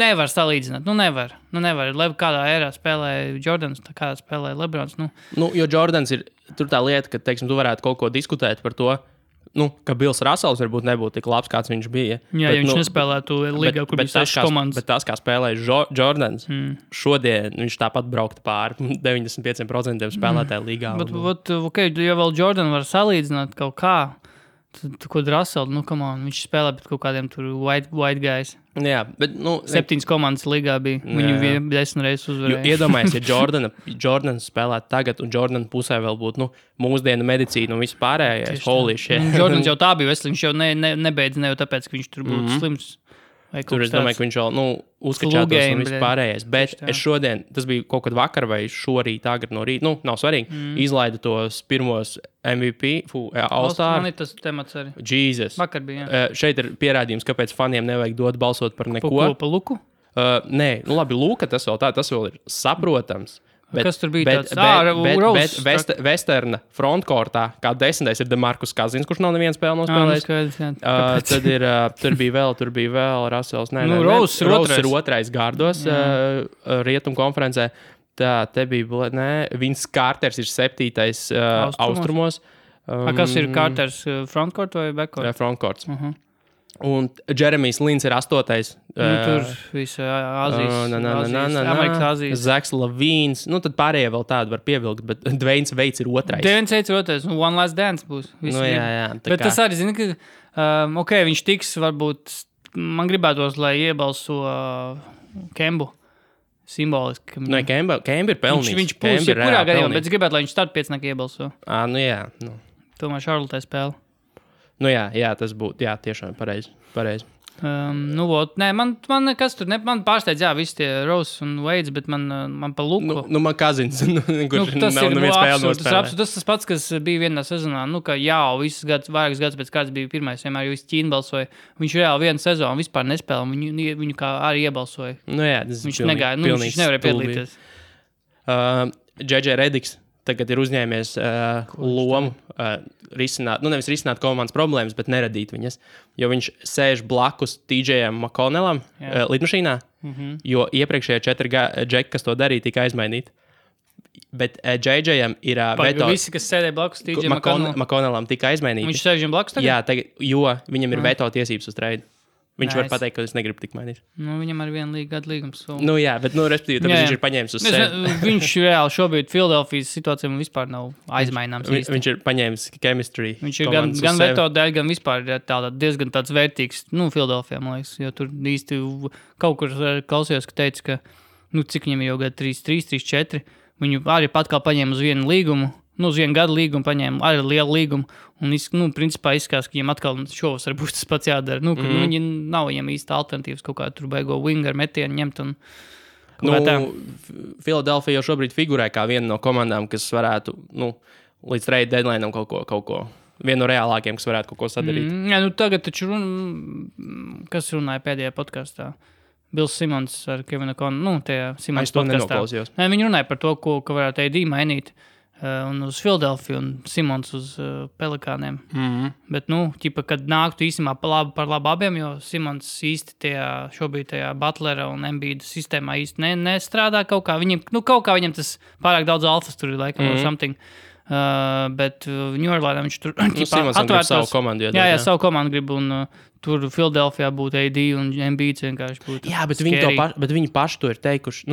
S2: nevar salīdzināt. Nevar. Kādā ērā spēlē Jordans, kādā spēlē Lebrons.
S1: Jo Jordans ir tur tā lieta, ka, teiksim, tu varētu kaut ko diskutēt par to, ka Bills Russells varbūt nebūtu tik labs, kāds viņš bija.
S2: Jā, bet, viņš nespēlētu līgā, kur bija 6 komandas.
S1: Bet tas, kā spēlēja Jordans, šodien viņš tāpat brauktu pāri 95% spēlētāju līgā.
S2: Bet, ja vēl Jordan var salīdzināt kaut kā, tad, ko Russell, viņš spēlē pret kaut kādiem tur white guys.
S1: Jā, bet,
S2: 7 komandas līgā bija. Viņu 10 reizes uzvarēja.
S1: Iedomājies, ja Jordans spēlētu tagad, un Jordan pusē vēl būtu, mūsdienu medicīna un viss pārējais. Holy shit.
S2: Jordans jau tā bija veselīgs, viņš jau nebeidz ne jau tāpēc, ka viņš tur būtu slims.
S1: Tur es domāju, ka viņš vēl uzskačātos un viss pārējais. Bet es šodien, tas bija kaut kad vakar vai šorīt, agri no rīta, nav svarīgi, izlaidu tos pirmos MVP, All-Star.
S2: Man ir tas temats arī.
S1: Jesus.
S2: Vakar bija, jā.
S1: Šeit ir pierādījums, kāpēc faniem nevajag dot balsot par neko.
S2: Pa Luku?
S1: Nē, labi, Luka tas vēl ir saprotams.
S2: Kas tur bija tāds?
S1: Westerna frontkortā, kā 10. ir DeMarcus Cousins, kurš nav nevienu spēli nospēlējis. Tur bija vēl Russells.
S2: Rose
S1: ir otrais gārdos Rietumu konferencē. Tā, te bija, Vince Carters ir 7. austrumos.
S2: Kas ir Carters, frontcourt vai backcourt?
S1: Frontcourts. Un Jeremijs Lins ir 8.
S2: Tur visa Āzijas, Amerikas Āzijas.
S1: Zaks Lavīns. Tad pārējie vēl tādu var pievilkt, bet Dwaynes Veits ir 2.
S2: Dwaynes Veits ir 2. One Last Dance būs.
S1: Jā.
S2: Bet tas arī, zini, ka viņš tiks, varbūt, man gribētos, lai iebalso Kembu. Simboliski.
S1: Kemba ir pelnījis.
S2: Viņš būs jebkurā gadījumā, bet es gribētu, lai viņš start 5 iebalso.
S1: Jā.
S2: Tomēr Šarlotē spēle.
S1: Jā, tas būtu, tiešām pareizi.
S2: Man nekas tur, man pārsteidz, visi tie Rose un Veids, bet man pa Luku.
S1: Man Cousins, kurš nav neviens spēle nospēlē.
S2: Tas pats, kas bija vienā sezonā, ka visus gadus, vairākus gadus pēc kāds bija pirmais, vienmēr visi Ķīna balsoja. Viņš reāli vienu sezonu vispār nespēlē, viņu kā arī iebalsoja.
S1: Tas
S2: viņš negāja, viņš nevarēja piedalīties.
S1: J.J. Rediks tagad ir uzņēmies lomu risināt, nevis risināt komandas problēmas, bet neradīt viņas. Jo viņš sēž blakus TJam McConnellam lidmašīnā, jo iepriekšējie 4 džeki, kas to darīja, tika aizmainīti. Bet JJam ir veto.
S2: Visi, kas sēdēja blakus TJ
S1: McConnellam, tika aizmainīti.
S2: Viņš sēž viņam blakus tagad?
S1: Jā, tagad, jo viņam ir veto tiesības uz trade. Viņš var pateikt, ka es negribu tik mainīt.
S2: Nu, viņam ar 1 gadu līgums.
S1: Nu jā, bet, respektīvi, tāpēc viņš ir paņēmis uz sevi.
S2: Viņš reāli šobrīd Philadelphijas situācijā vispār nav aizmaināms.
S1: Viņš ir paņēmis chemistry.
S2: Viņš ir gan veto dēļ, gan vispār diezgan tāds vērtīgs, Philadelphijā, man liekas, jo tur īsti kaut kur klausījos, ka teica, ka, cik viņam jau gadu 3, 4, viņu arī pat kā paņēma uz 1 līgumu, uz 1 gadu līgumu paņēma arī lielu līgumu, un, principā izskās, ka viņam atkal šovasar būs tas pats jādara, viņi nav viņam īsta alternatīvas kaut kā tur baigo winger metienu ņemt un
S1: Philadelphia jau šobrīd figurē kā viena no komandām, kas varētu, līdz trade deadline'am kaut ko, viena no reālākiem, kas varētu kaut ko sadarīt.
S2: Tagad taču kas runāja pēdējā podkastā? Bills Simons ar Kevinu Konu, tajā Simons podkastā. Viņi runāja par to, ka varētu AD mainīt un uz Philadelphia un Simons uz Pelikāniem. Bet, kad nāktu īstenībā par labu abiem, jo Simons īsti šobrīd tajā Butlera un Embiida sistēmā īsti nestrādā kaut kā. Kaut kā viņam tas pārāk daudz alfas tur ir laikam or something. Bet New Orleansā viņš tur
S1: Simons grib savu komandu.
S2: Jā, savu komandu grib un tur Philadelphijā būtu AD un Embiids vienkārši būtu.
S1: Jā, bet viņi paši to ir teikuši.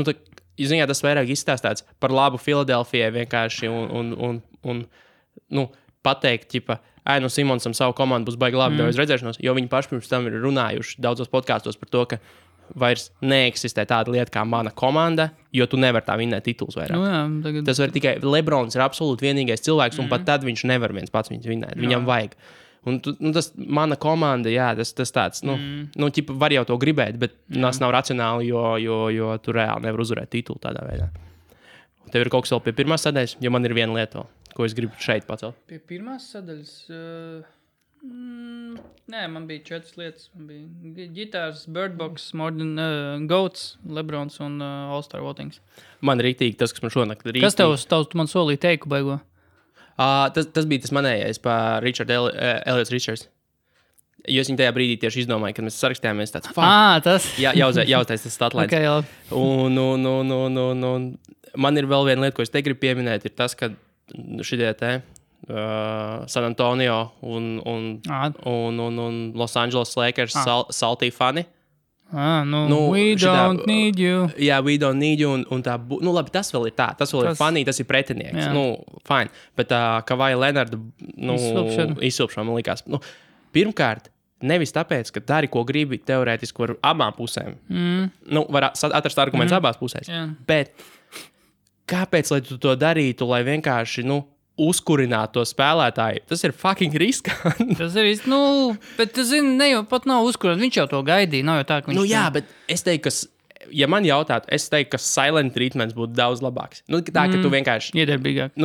S1: Ziņā tas vairāk izstāstāts par labu Philadelphijai vienkārši un pateikt, Simonsam savu komandu būs baigi labi, daudz redzēšanos, jo viņi paši pirms tam ir runājuši daudzos podkāstos par to, ka vairs neeksistē tāda lieta kā mana komanda, jo tu nevar tā vinnēt titulus vairāk. Tas var tikai Lebrons ir absolūti vienīgais cilvēks, un pat tad viņš nevar viens pats viņus vinnēt. Viņam vajag. Un tas mana komanda, jā, tas tāds, var jau to gribēt, bet tas nav racionāli, jo tu reāli nevar uzvarēt titulu tādā veidā. Un tev ir kaut kas vēl pie pirmās sadaļas, jo man ir viena lieta, ko es gribu šeit pacelt.
S2: Pie pirmās sadaļas? Nē, man bija 4 lietas. Man bija ģitārs, Birdbox, Goats, Lebrons un All-Star Votings.
S1: Man rītīgi tas, kas man šonakt rītīgi.
S2: Kas tev man solīja teiku baigo?
S1: Tas bija tas manējais par Elliot Richards. Jo es viņu tajā brīdī tieši izdomāju, kad mēs sarakstījāmies tāds
S2: tas?
S1: Jā, jāuztais tas statlines.
S2: Okay,
S1: un man ir vēl viena lieta, ko es te gribu pieminēt, ir tas, ka šitie San Antonio un Los Angeles Lakers salty fani.
S2: We don't need you.
S1: Jā, we don't need you. Un tā, labi, tas vēl ir tā. Tas vēl ir funny, tas ir pretinieks. Fine. Bet Kawhi Leonarda izsilpšana man likās. Pirmkārt, nevis tāpēc, ka dari, ko gribi teorētiski ar abām pusēm. Var atrast argumentus abās pusēs. Bet kāpēc, lai tu to darītu, lai vienkārši, uzkurināt to spēlētāju? Tas ir fucking riskanti.
S2: Tas ir bet tu zini, ne jau pat nav uzkurināt, viņš jau to gaidīja, nav jau tā, ka viņš...
S1: Jā, bet es teiktu, ka, ja man jautātu, es teiktu, ka silent treatments būtu daudz labāks. Tā, ka tu vienkārši...
S2: Iedarbīgāk.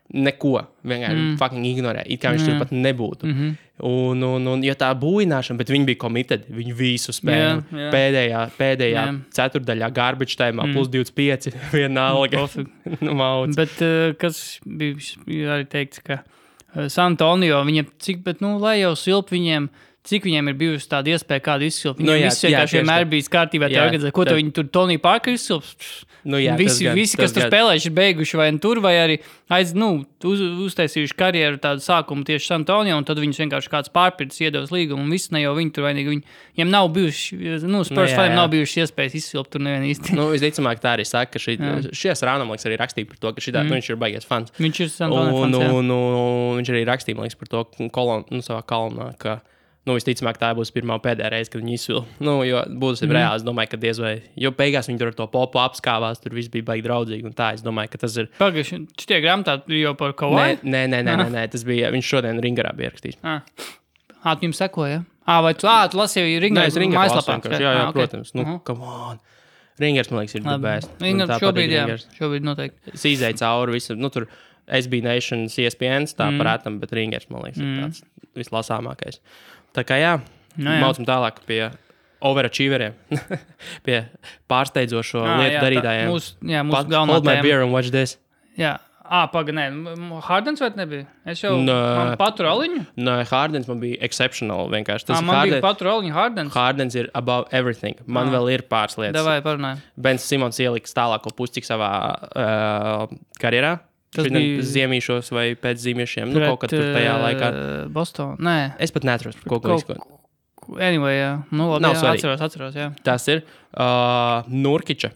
S1: Neko vienkārši fucking ignorē, it kā viņš tur pat nebūtu. Un ja tā būināšana, bet viņi bija committed, viņi visu spēli. Pēdējā ceturdaļā garbage time'ā plus 25, vienalga. Mauc.
S2: Bet kas bija arī teikts, ka San Antonio, viņiem lai jau silp viņiem, cik viņiem ir bijusi tāda iespēja, kādu izsilpt. Viņiem visi vienkārši vienmēr bijis kārtībā tā organizē. Ko viņi tur Tony Parker izsilps? Visi, kas tur spēlējuši, ir beiguši vai tur, vai arī uztaisījuši karjeru tādu sākumu tieši San Antonio, un tad viņus vienkārši kāds pārpirts iedevis līgumu, un viss ne jau viņi tur vainīgi. Viņiem nav bijuši, Spurs faniem nav bijuši iespējas izsilpt tur nevien īsti.
S1: Visticamāk tā arī saka, ka šies Rānamliks arī rakstīja par to, ka viņš ir baigies fans.
S2: Viņš ir San Antonio fans,
S1: viņš arī rakstīja, par to savā kolonā, ka visticamāk, tā būs pirmā pēdējā reize, kad viņi izsvilp. Jo būs reāli, es domāju, ka diez vai. Jo beigās viņi tur ar to popu apskāvās, tur viss bija baigi draudzīgi. Un tā, es domāju, ka tas ir.
S2: Pagaidzi, šitie grāmatā jau par Kawhi?
S1: Nē, tas bija, viņš šodien Ringarā bija rakstījis.
S2: Tu jums sekoja? Vai tu lasīji Ringarā?
S1: Nē, es Ringarā mājaslapā. Jā, protams. Come on. Ringars, man liekas, ir the best.
S2: Šobrīd noteikti.
S1: Es izēju cauri visu, tur SB Nation, ESPN, tā parātam, bet Ringars, man liekas, ir tāds vislasāmākais. Tā kā maucam tālāk pie overachieveriem, pie pārsteidzošo lietu darītājiem.
S2: Mūsu galvenā
S1: Hold my beer and watch this.
S2: Jā, Nē, Hardens vai nebija? Es jau man paturu aliņu?
S1: Nē, Hardens man bija exceptional vienkārši. Tas
S2: man bija paturu aliņu Hardens?
S1: Hardens ir above everything. Man vēl ir pāris lietas.
S2: Davai, parunāj.
S1: Bens Simons ieliks tālāko puscik savā karjerā. Tas bija ziemīšos vai pēc zīmiešiem. Kaut kad tur tajā laikā.
S2: Boston, nē.
S1: Es pat neatceros, par ko izskot.
S2: Anyway, jā. Nu, labi, atceros, jā.
S1: Tas ir Nurkiča.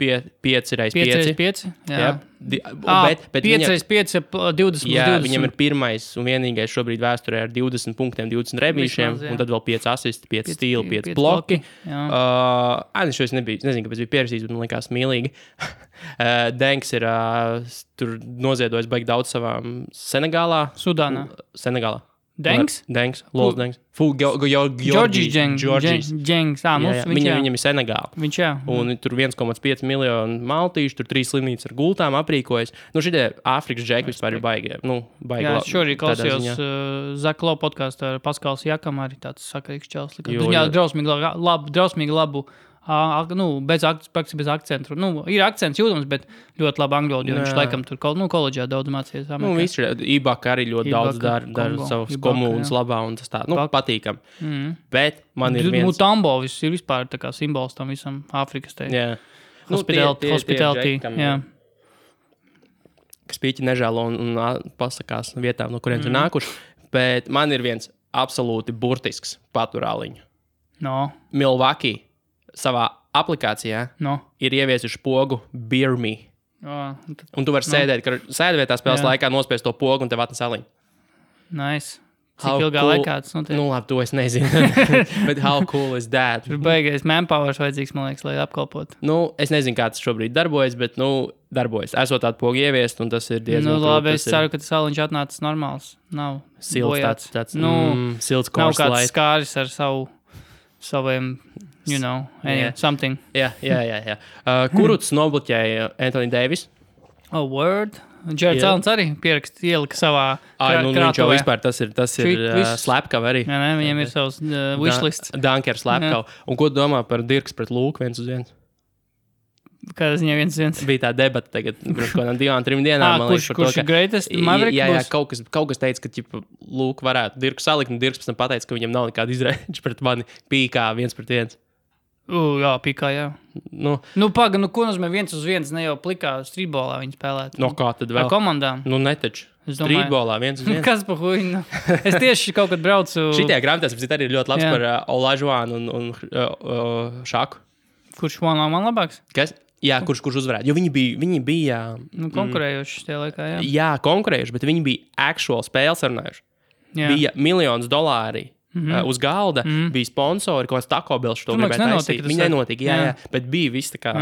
S1: 5x5.
S2: Jā.
S1: Bet
S2: 5x5 20.
S1: Jā, viņam ir pirmais un vienīgais šobrīd vēsturē ar 20 punktiem, 20 rebīšiem, un tad vēl 5 asisti, 5 stīli, 5 bloki. Šo es nezinu, kāpēc bija pierasījis, bet man likās mīlīgi. Denks ir tur noziedojis baigi daudz savām Senegālā.
S2: Sudānā.
S1: Senegālā.
S2: Denks?
S1: Lols Denks.
S2: Georgis Džengs.
S1: Viņam ir Senegāla.
S2: Viņš, jā.
S1: Un tur 1,5 miljonu maltīšu, tur 3 slimnīcas ar gultām aprīkojas. Šitie Āfrikas džeki vispār ir baigi.
S2: Jā, es šorīt klausījos Zaklo podcastu ar Paskals Jakam, arī tāds sakarīgs čels. Viņā drausmīgi labu, bez akcentu. Ir akcents jūtams, bet ļoti labi angļu valodu, jo viņš laikam tur koledžā daudz mācījies.
S1: Viss ir Ibaka arī ļoti daudz dara savas komunas labā, un tas tā, patīkam. Bet man ir viens...
S2: Mutambo ir vispār tā kā simbols tam visam Āfrikas te.
S1: Jā.
S2: Hospitality, jā.
S1: Kas pīķi nežēlo un pasakās vietām, no kuriem ir nākuši. Bet man ir viens absolūti burtisks paturāliņu. Milwaukee savā aplikācijā ir ieviesuši pogu Beer Me. Un tu vari sēdvietā spēles laikā nospiest to pogu un tev atnes aliņu.
S2: Nice. Cik ilgā laikā tas notiek?
S1: Labi, to es nezinu. Bet how cool is that?
S2: Tur beigais manpowers vajadzīgs, man liekas, lai apkalpotu.
S1: Es nezinu, kā tas šobrīd darbojas, bet, darbojas. Esot tādu pogu ieviest, un tas ir diezgan
S2: labi, es ceru, ka tas aliņš atnācis normāls. Nav
S1: silts tāds silts
S2: nav kāds skāris ar saviem, something.
S1: Jā. Kuruts nobloķēja Anthony Davis.
S2: Word. Jared Alens arī ielika savā
S1: krātuvē. Viņš jau vispār tas ir slepkava arī.
S2: Jā, viņam ir savs wishlists.
S1: Dunker slepkava. Un ko domā par Dirks pret Lūku 1-1?
S2: Kādā ziņā 1-1?
S1: Bija tā debata tagad, pirms kādām 2-3 dienām.
S2: Kurš ir greatest Maverick?
S1: Jā, kaut kas teica, ka Lūku varētu Dirku salikt, un Dirks pēc tam pateica, ka viņam nav nekāda izrēģa pret mani pīkā 1-1.
S2: Jā, pīkā, jā. Paga, ko nozīmē 1-1, ne jau plikā streetbolā viņi spēlētu.
S1: Kā tad vēl?
S2: Ar komandām.
S1: Netaču. Streetbolā 1-1.
S2: Kas pa huiņu? Es tieši kaut kad braucu...
S1: Šitie grāmatās arī ir ļoti labs par Olajuwonu un Šaku.
S2: Kurš man labāks?
S1: Kas? Jā, kurš uzvarētu. Jo viņi bija...
S2: konkurējuši tajā laikā, jā.
S1: Jā, konkurējuši, bet viņi bija actual spēles runājuši. Bija $1,000,000 uz galda, bija sponsori, ko Taco Bell šo gribētu taisīt. Viņi nenotika, jā, bet bija viss tā kā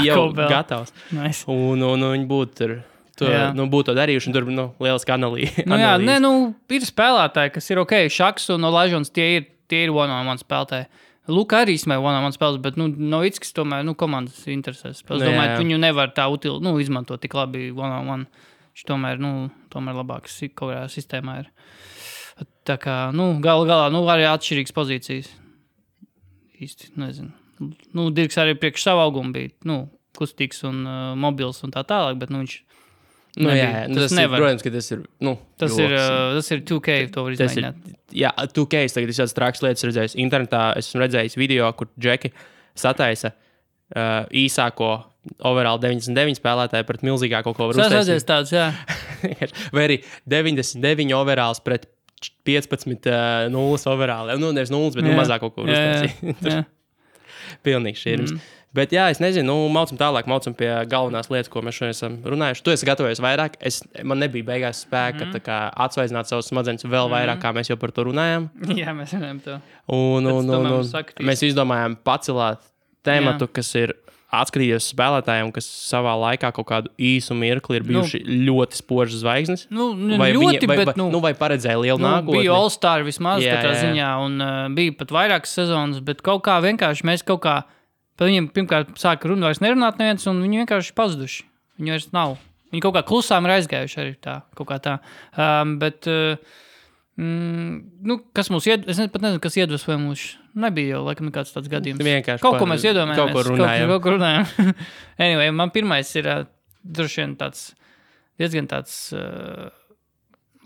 S1: jau gatavs.
S2: Nice.
S1: Un viņi būtu būtu to darījuši, un tur lieliski analīze.
S2: Ir spēlētāji, kas ir ok, Šaks un Olajuwons, tie ir one-on-one spēlētāji. Luka arī smēja one-on-one spēles, bet Novickis tomēr komandas interesēs. Es domāju, viņu nevar tā izmantot tik labi one-on-one. Viņš tomēr labāks kaut kādā sistēmā ir. Tā kā, galā, arī atšķirīgas pozīcijas. Īsti, nezinu. Dirks arī priekš savu augumu bija, kustīgs un mobils un tā tālāk, bet, viņš
S1: tas nevar. Protams, ka tas ir,
S2: tas ir 2K, to var izmēģināt.
S1: Jā, 2K, es tagad šādas trākas lietas redzējis. Internetā esmu redzējis video, kur Džeki sataisa īsāko overall 99 spēlētāju pret milzīgāko, ko var uztaisīt.
S2: Tas redzēs tāds, jā.
S1: Vai arī 99 overalls pret 15-0 overall. Nevis 0, bet mazāk kaut ko uztaisīt. Pilnīgi šķirms. Bet jā, es nezinu, maucam tālāk, maucam pie galvenās lietas, ko mēs šodien esam runājuši. Tu esi gatavojies vairāk, man nebija beigās spēka tā kā atsvaizināt savus smadzenes vēl vairāk, kā mēs jau par to runājām.
S2: Jā, mēs runājam to.
S1: Un mēs izdomājām pacelāt tēmatu, kas ir atskatījies spēlētājiem, kas savā laikā kaut kādu īsu mirkli ir bijuši ļoti spožas zvaigznes. Vai paredzēja lielu nākotni?
S2: Bija All-Star vismaz katrā ziņā, un bija pat vairākas sezonas, bet kaut kā vienkārši mēs kaut kā par viņiem pirmkārt sāka vairs nerunāt neviens, un viņi vienkārši pazuduši. Viņi vairs nav. Viņi kaut kā klusām ir aizgājuši arī tā, kaut kā tā. Bet... kas mums es pat nezinu, kas iedvesmoja mūs. Nebija jau, laikam, nekāds tāds gadījums.
S1: Vienkārši
S2: kaut ko mēs iedomājamies.
S1: Kaut ko runājam.
S2: Anyway, man pirmais ir droši vien tāds diezgan tāds,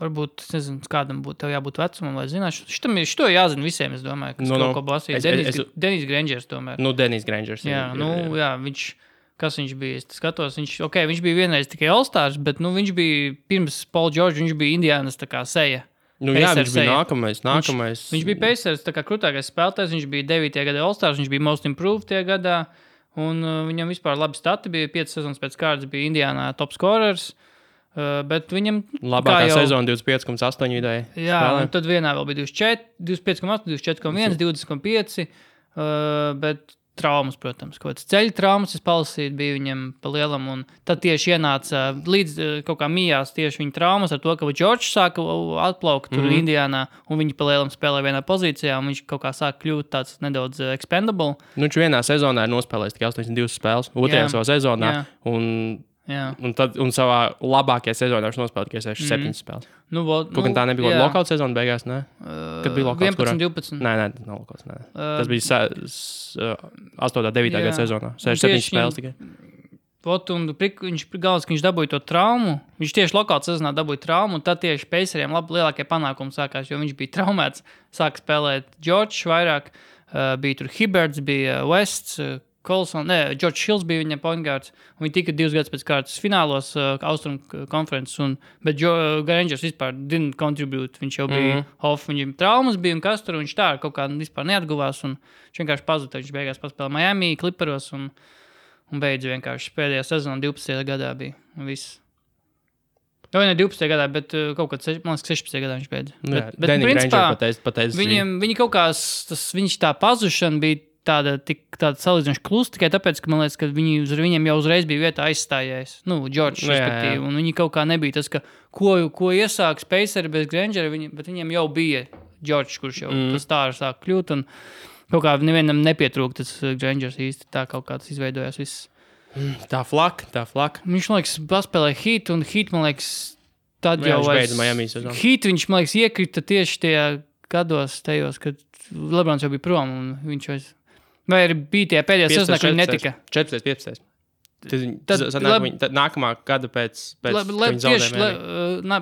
S2: varbūt, es nezinu, kādam būtu, tev jābūt vecumam, lai zināšu. Šito jāzina visiem, es domāju, kas kaut ko basīja. Denis Grangers tomēr.
S1: Denis Grangers.
S2: Jā, kas viņš bija, es skatos, viņš bija vienreiz tikai All-Stars, bet, viņš bija pirms Paul George, viņš bija Indiānas tā kā seja.
S1: Viņš bija nākamais.
S2: Viņš bija Pacers, tā kā krūtākais spēlētājs, viņš bija 9. gada All-Stars, viņš bija Most Improved tie gadā, un viņam vispār labi stati bija, 5 sezonas pēc kārtas bija Indiānā top scorers, bet viņam...
S1: Labākā sezona 25,8 vidēji.
S2: Jā, un tad vienā vēl bija 25,8, 24,1, 20,5, bet... traumas, protams, kaut kāds ceļu traumas, es palasīju, bija viņam pa lielam, un tad tieši ienāca līdz kaut kā mijās tieši viņa traumas ar to, ka Džordžs sāka atplaukt tur Indiānā, un viņi pa lielam spēlē vienā pozīcijā, un viņš kaut kā sāka kļūt tāds nedaudz expendable.
S1: Viņš vienā sezonā ir nospēlējis tikai 82 spēles, otrajā savā sezonā, un savā labākajā sezonā viņš nospēlēja tikai 7 spēles. Tā nebija lokāla sezona beigās, ne? Kad bija lokāls,
S2: 11, 12.
S1: Nē, nav lokāls, nē. Tas bija 8. 9. gada sezonā. 6-7 spēles tikai.
S2: Viņš galvenais, ka viņš dabūja to traumu. Viņš tieši lokāla sezonā dabūja traumu, un tad tieši Paceriem lielākie panākumi sākās, jo viņš bija traumēts. Sāka spēlēt Džordžs vairāk, bija tur Hibberts, bija Wests, George Hills bija viņa point guards, un viņi tika 2 gadus pēc kārtas finālos Austrum konferences, bet Grangers vispār didn't contribute, viņš jau bija off, viņam traumas bija un kas tur, viņš tā kaut kā vispār neatguvās, un viņš vienkārši pazuda, viņš beigās paspēlēja Miami, Clipperos, un beidz vienkārši pēdējā sezona 12. gadā bija, un viss. Ne 12. gadā, bet kaut kad 16. gadā viņš beidza. Bet principā, viņi kaut kā, viņš tā pazušana bija tāda salīdzinoši klusa, tikai tāpēc, ka man liekas, ka viņiem jau uzreiz bija vietā aizstājies. Džordžs, respektīvi. Un viņi kaut kā nebija tas, ka ko iesāks Paceri bez Grangera, bet viņiem jau bija Džordžs, kurš jau tas tā sāk kļūt, un kaut kā nevienam nepietrūk tas Grangers īsti. Tā kaut kā tas izveidojās viss.
S1: Tā flaka.
S2: Viņš, man liekas, paspēlēja Heat, un Heat, man liekas, tad jau Heat, viņš, man liekas, iekrita tieši tajā gados tajos, kad Lebrons jau bija prom, un viņš vairs... Vai arī bija tie pēdējā sezonā, ka viņi netika?
S1: 14, 15. Tad nākamā gada pēc viņa zaudējuma.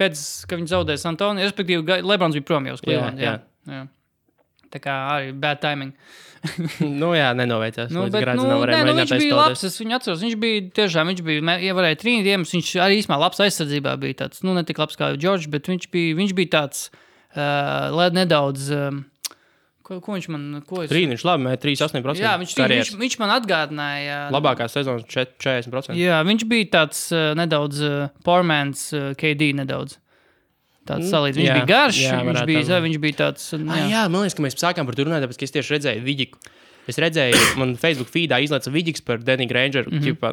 S2: Pēc, ka viņi zaudēja San Antonio, respektīvi Lebrons bija prom jau uz Cleveland. Jā. Tā kā arī bad timing.
S1: Nenoveicās.
S2: Viņš bija labs, es viņu atceros. Viņš bija, ja varēja trīnīt, viņš arī īsmā labs aizsardzībā bija tāds, ne tik labs kā George, bet viņš bija tāds, nedaudz... Ko viņš man...
S1: Viņš labi, 3,8%.
S2: Jā, viņš man atgādināja...
S1: Labākā sezona 40%.
S2: Jā, viņš bija tāds nedaudz poormans KD nedaudz. Tāds salīdz. Viņš bija garš, viņš bija tāds...
S1: Jā, man liekas, ka mēs sākām par to runāt, tāpēc, ka es tieši redzēju Viģiku. Es redzēju, man Facebook feedā izlaica Viģiks par Denny Grangeru, ķipā,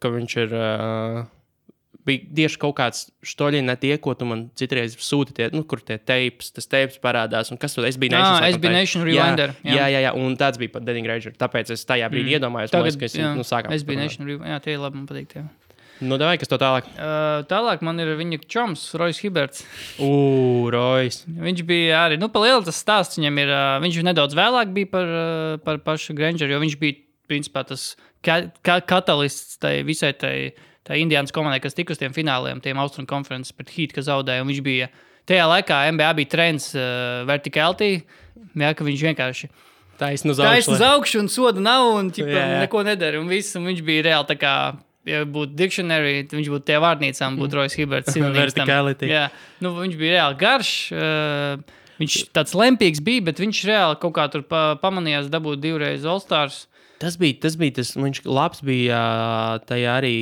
S1: ka viņš ir... bija tieši kaut kāds štoļiņi tie, ko tu man citreiz sūti, kur tie tas teips parādās, un kas tu, SB Nation.
S2: SB Nation Rewinder.
S1: Jā, un tāds bija pat Denny Granger, tāpēc es tajā brīdī iedomājos, ka es sākām.
S2: SB Nation Rewinder, jā, tie labi man patīk, jā.
S1: Davai, kas to tālāk?
S2: Tālāk man ir viņa čoms, Royce Hibberts.
S1: Royce.
S2: Viņš bija arī, pa lielu tas stāsts viņam ir, viņš nedaudz vēlāk bija par pašu Grangeru, jo viņš bija, principā, tas katalists tai visai tā Indiānas komandai, kas tika uz tiem fināliem, tiem Austrum konferences pret Heat, kas zaudēja, un viņš bija, tajā laikā NBA bija trends verticality, ka viņš vienkārši taisn uz augšu un soda nav, un neko nedara, un viss, un viņš bija reāli tā kā, ja būtu dictionary, viņš būtu tie vārnīcām, būtu Royce Hibberts.
S1: Verticality.
S2: Jā, viņš bija reāli garš, viņš tāds lempīgs bija, bet viņš reāli kaut kā tur pamanījās dabūt 2 reizes All-Stars.
S1: Tas bija, viņš labs bija tajā arī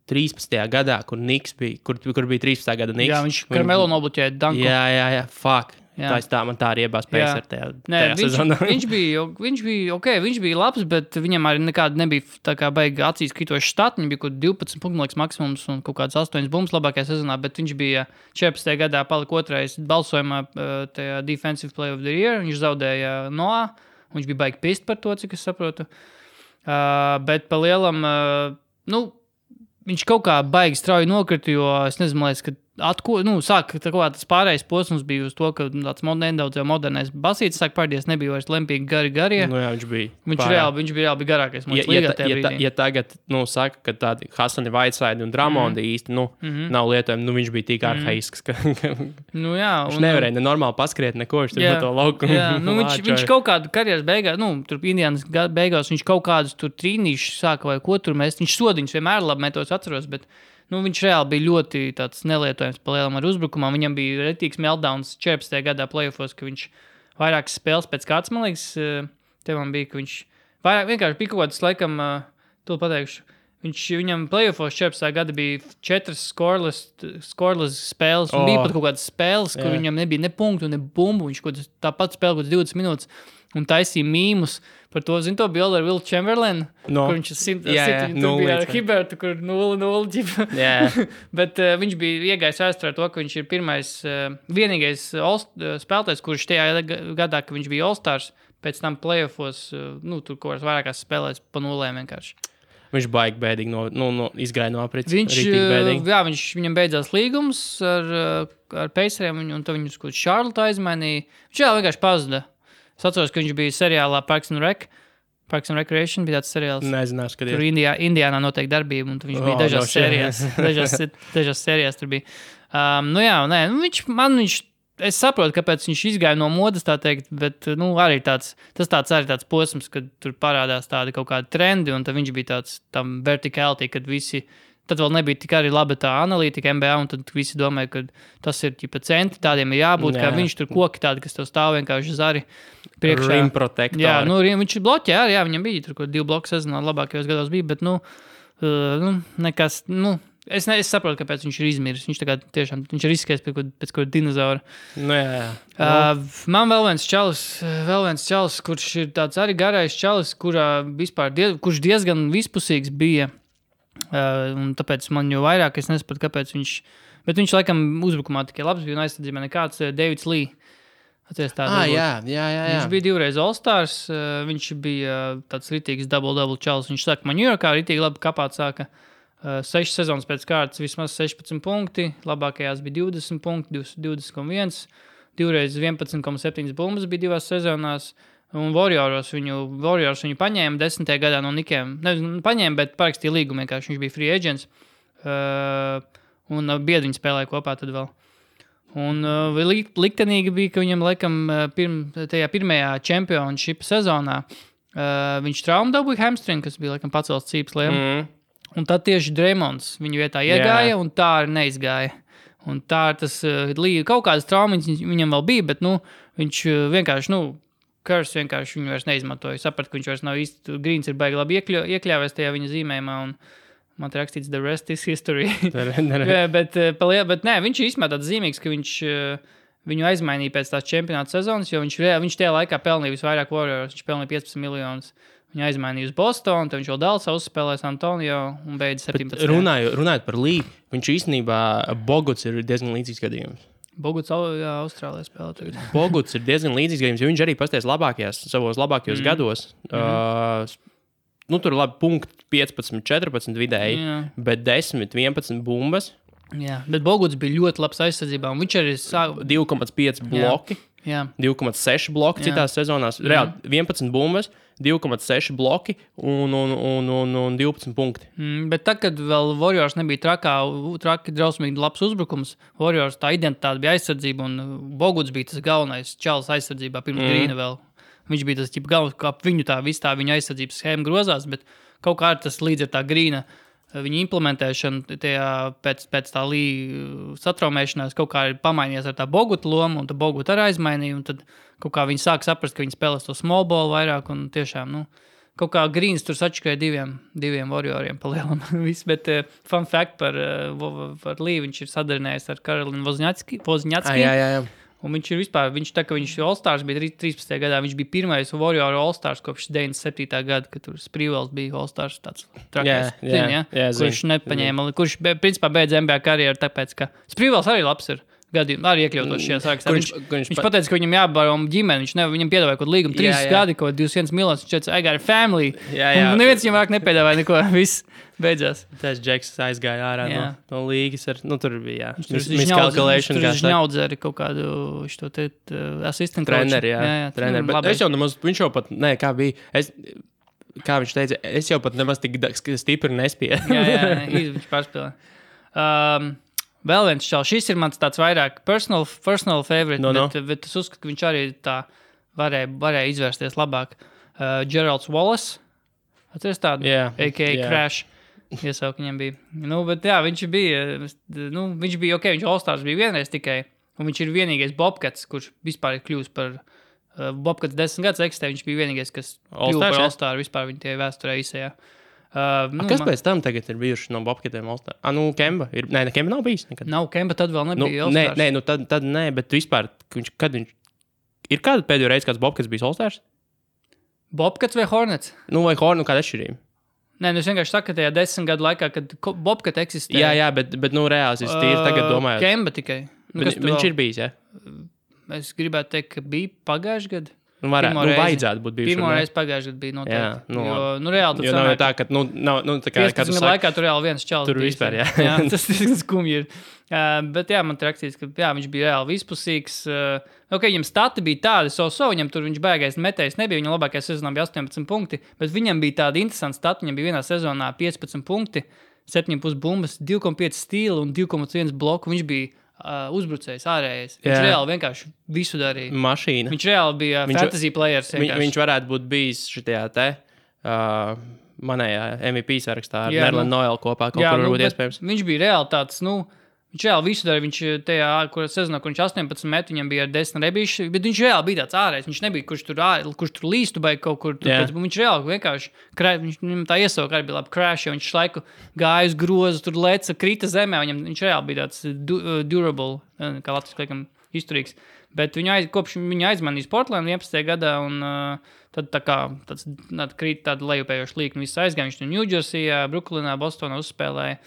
S1: 13. gadā, kur Niks bija, kur bija 13. gada Niks.
S2: Jā, viņš Carmelo nobloķēja danku.
S1: Jā, fuck. Man tā arī iebās pēc tajā sezonā.
S2: Viņš bija labs, bet viņam arī nekāda nebija tā kā baigi acīs kritoši štati. Viņam bija kaut 12 punktu maksimums un kaut kāds 8 bumbas labākajā sezonā, bet viņš bija 14. gadā palika 2. balsojumā tajā Defensive Player of the Year. Viņš zaudēja Noah, un viņš bija baigi pist par to, cik es saprotu. Bet pa lielam, viņš kaut kā baigi strauji nokrita, jo es nezinu, man liekas, ka sāk tas pārējais posms bija uz to, ka tāds nedaudz jau modernais basītis sāk pārdies, nebija vairs lempīgi garie.
S1: Nu jā, viņš bija.
S2: Viņš bija reāli garākais.
S1: Ja tagad, saka, ka tādi Hasani Whiteside un Dramondi īsti, nav lietojami, viņš bija tik arhaisks, ka viņš nevarēja nenormāli paskriet neko, viņš tur pa to laukumu.
S2: Jā, viņš kaut kādu karjeras beigās, tur Indianas beigās, viņš kaut kādus tur trīnīšus sāka vai ko tur mest. Viņš sodiņus vienmēr labi metos atceros, bet viņš reāli bija ļoti tāds nelietojams pa lielam ar uzbrukumā. Viņam bija retīgs meltdowns 14. gadā playoffos, ka viņš vairākas spēles pēc kāds, man liekas, te man bija, ka viņš vairāk vienkārši bija kaut kāds, laikam, to pateikšu, viņam playoffos 14. gada bija 4 scoreless spēles, un bija pat kaut kādas spēles, kur viņam nebija ne punktu, ne bumbu, viņš tāpat spēlē kaut 20 minūtes, un taisīja mīmus par to, to bildi ar Will Chamberlain, kur viņš bija ar Hibertu, kur 0-0. Bet viņš bija iegājis vēsturē to, ka viņš ir vienīgais spēlētājs, kurš tajā gadā, ka viņš bija All-Stars, pēc tam playoffos, tur kaut kāds vairākās spēlēs pa nulēm vienkārši.
S1: Viņš baigi bēdīgi izgāja no aprits.
S2: Viņam beidzās līgums ar Paceriem, un tad viņus kaut Charlotte aizmainīja. Viņš vienkārši pazuda. Es atceros, ka viņš bija seriālā Parks and Recreation, bija tāds seriāls.
S1: Nezināšu, kad
S2: tur Indiānā notiek darbība, un viņš bija dažās sērijās. dažās sērijās tur bija. Es saprotu, kāpēc viņš izgāja no modas, tā teikt, bet arī tas tāds posms, kad tur parādās tādi kaut kādi trendi, un tad viņš bija tāds tam verticality, kad visi. Tad vēl nebija tik arī laba tā analītika NBA, un tad visi domāja, ka tas ir ķipa centi, tādiem ir jābūt, kā viņš tur koki tādi, kas tev stāv vienkārši zari priekšā.
S1: Rim protektori.
S2: Jā, viņš bloķē, viņam bija tur kaut 2 bloku sezonā labākajos gados bija, bet, nekas, es saprotu, kāpēc viņš ir izmiris. Viņš tagad tiešām, viņš ir izskais pēc kaut dinozaura. Man vēl viens čalis, kurš ir tāds arī garais čalis, kurš diezgan vispusīgs bija. Un tāpēc man jau vairāk es nesapratu, kāpēc bet viņš laikam uzbrukumā tikai labs bija un aizsardzībā nekāds Davids Lee.
S1: Jā.
S2: Viņš bija 2 reizes All-Stars, viņš bija tāds ritīgs double čalis. Viņš saka, man New Yorkā ritīgi labi kapāt sāka 6 sezonas pēc kārtas, vismaz 16 punkti, labākajās bija 20 punkti, 20,1, 2 reizes 11,7 bumbas bija 2 sezonās. Un Warriors viņu paņēma 10. gadā no Nikiem. Paņēma, bet parakstīja līgumu vienkārši. Viņš bija free agents. Un biedri viņi spēlēja kopā tad vēl. Un liktenīgi bija, ka viņam laikam tajā pirmajā championship sezonā viņš traumu dabūja hamstring, kas bija laikam pacels cīpsliem. Un tad tieši Draymonds viņu vietā iegāja un tā arī neizgāja. Un tā tas kaut kādas traumas viņam vēl bija, bet viņš vienkārši, Kurs vienkārši viņu vairs neizmantoja. Sapratu, ka viņš vairs nav īsti, Grīns ir baigi labi iekļāvies tajā viņa zīmējumā, un man te rakstīts the rest is history. bet nē, viņš ir īstenībā tāds zīmīgs, ka viņš viņu aizmainīja pēc tās čempionāta sezonas, jo viņš tajā laikā pelnīja visvairāk Warriors, viņš pelnīja 15 miljonus. Viņu aizmainīja uz Bostonu, tad viņš vēl Dallasā uzspēlēja San Antonio un beidz 17.
S1: Runājot par Lee, viņš īstenībā Boguts ir diezgan līdzīgs gadījums.
S2: Boguts Austrālijā spēlē tagad.
S1: Boguts ir diezgan līdzīgs gadījums, jo viņš arī pasties savos labākajos gados. Tur ir labi punkti 15, 14 vidēji, bet 10, 11 bumbas.
S2: Jā, bet Boguts bija ļoti labs aizsardzībā, un viņš arī
S1: 2,5 bloki, 2,6 bloki citās sezonās, reāli 11 bumbas, 2,6 bloki un 12 punkti.
S2: Bet tad, kad vēl Warriors nebija traki drausmīgi labs uzbrukums, Warriors tā identitāte bija aizsardzība, un Boguts bija tas galvenais čalis aizsardzībā pirms Grīna vēl. Viņš bija tas galvenais, kā viņu viņa aizsardzības schēma grozās, bet kaut kā tas līdz ar tā Grīna viņa implementēšana pēc tā Lee satraumēšanās kaut kā ir pamainījies ar tā Boguta lomu, un tā Boguta arī aizmainīja, un tad kaut kā viņi sāk saprast, ka viņi spēlēs to small ball vairāk, un tiešām, kaut kā Grīns tur sačakoja diviem Warrioriem pa lielam. Bet fun fact par Lee, viņš ir sadarinājies ar Karolinu Wozniacki.
S1: Jā.
S2: Un viņš tā, ka viņš All-Stars bija 13. gadā, viņš bija pirmais Warrior All-Stars kopš 97. gada, kad tur Sprīvels bija All-Stars tāds trakais. Kurš nepaņēma, kurš principā beidz NBA karjeru, tāpēc, ka Sprīvels arī labs ir. gadījumā arī iekļautos šajā sarakstā. Viņš pateica, ka viņam jābaro ģimeni, viņam piedāvāja kaut līgumu 3 gadi, kaut 21 miljonus, viņš teica, I got a family. Un neviens viņam vāk nepiedāvāja neko, viss beidzās.
S1: Tas Džeks aizgāja ārā no līgas, tur bija,
S2: miscalculation. Tur viņš ņaudz arī kaut kādu šo te asistentu.
S1: Treneri, treneri, bet es jau nemaz, viņš jau pat, kā bija, kā viņš teica, es jau pat nemaz tik stipri nespēju.
S2: Viņš pārspēlē. Vēl viens čals, šis ir mans tāds vairāk personal favorite, bet es uzskatu, ka viņš arī tā varēja izvērsties labāk. Geralds Wallace, atceries tādu, a.k.a. Crash, iesaukt viņam bija. Bet viņš bija ok, viņš All-Stars bija vienreiz tikai, un viņš ir vienīgais Bobcats, kurš vispār ir kļūst par Bobcats 10 gadus eksistē, viņš bija vienīgais, kas kļūst par All-Star vispār viņa tie vēsturē īsajā.
S1: Kas pēc tam tagad ir bijuši no Bobcatiem All-Star? Kemba ir? Nē, Kemba nav bijis nekad.
S2: Nav Kemba, tad vēl nebija All-Stars.
S1: Tad nē, bet vispār, kad viņš... Ir kāda pēdējo reizi, kāds Bobcats bijis All-Stars?
S2: Bobcats vai Hornets?
S1: Vai Hornets, kāda atšķirība?
S2: Nē, es vienkārši saku, ka tajā 10 gadu laikā, kad Bobcat eksistē.
S1: Jā, bet reāls, es tīri tagad domāju.
S2: Kemba tikai.
S1: Viņš ir bijis, jā?
S2: Es gribētu teikt, ka bija pagājuši gadu.
S1: Vajadzētu būt bijuši.
S2: Pirmo reizi pagājuši gadu bija noteikti.
S1: Jā,
S2: reāli tur
S1: sanāk. Tā, ka, tā kā
S2: 15 laikā tur reāli viens čals.
S1: Tur vispār, jā.
S2: Tas skumji ir. Bet man ir rakstīts, ka viņš bija reāli vispusīgs. Viņam stati bija tādi, viņam tur viņš bēgais metējs nebija, viņa labākajā sezonā bija 18 punkti, bet viņam bija tādi interesanti stati, viņam bija vienā sezonā 15 punkti, 7,5 bumbas, 2,5 stīli un 2,1 bloku. Viņš bija uzbrucējs, ārējais. Viņš reāli vienkārši visu darīja.
S1: Mašīna.
S2: Viņš reāli bija fantasy players.
S1: Viņš varētu būt bijis šitajā te manējā MVP sarakstā ar Nerlinu Noelu kopā. Kaut kur varbūt iespējams.
S2: Viņš bija reāli tāds, viņš reāli visu darīja. Viņš tajā, sezonā, kur viņš 18 met, viņam bija ar 10 rebīši, bet viņš reāli bija tāds ārējais. Viņš nebija, kurš tur līstu vai kaut kur. Viņš reāli vienkārši, viņam tā iesauka arī bija labi crash, jo viņš laiku gāja uz grozu, tur leca, krita zemē. Viņš reāli bija tāds durable, kā Latvijas liekam, izturīgs. Bet kopš viņa aizmanīs Portland 11. gadā, un tad tā kā krīt tāda lejupējoša līkna. Viss aizgāja, viņš no New Jerseyā, Brooklynā, Bostonā uzspēlēja.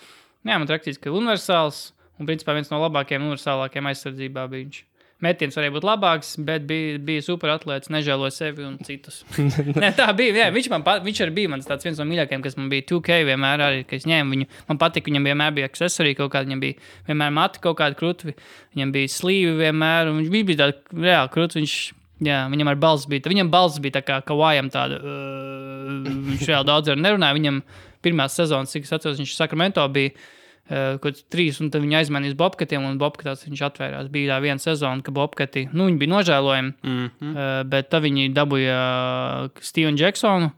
S2: Jā, man rakstīts, ka universāls. Un, principā, viens no labākajiem, universālākajiem aizsardzībā bija viņš. Metiens varēja būt labāks, bet bija super atlēts, nežēloja sevi un citus. Nē, tā bija, jā, viņš arī bija mans tāds viens no mīļākajiem, kas man bija 2K vienmēr arī, ka es ņēmu viņu. Man patika, viņam vienmēr bija accessorī kaut kāda, viņam bija vienmēr mati kaut kāda krutvi, viņam bija slīvi vienmēr, un viņš bija tāda reāli krutvi, viņam ar balss bija tā kā Kawajam tāda, viņš reāli daudz arī nerunāja, viņam pirmās sezonas, cik es atceros, viņš Sacramento bija, kaut 3, un tad viņi aizmanīs Bobcatiem, un Bobcatās viņš atvērās. Bija tā viena sezona, ka Bobcati, viņi bija nožēlojami, bet tad viņi dabūja Stevenu Jacksonu,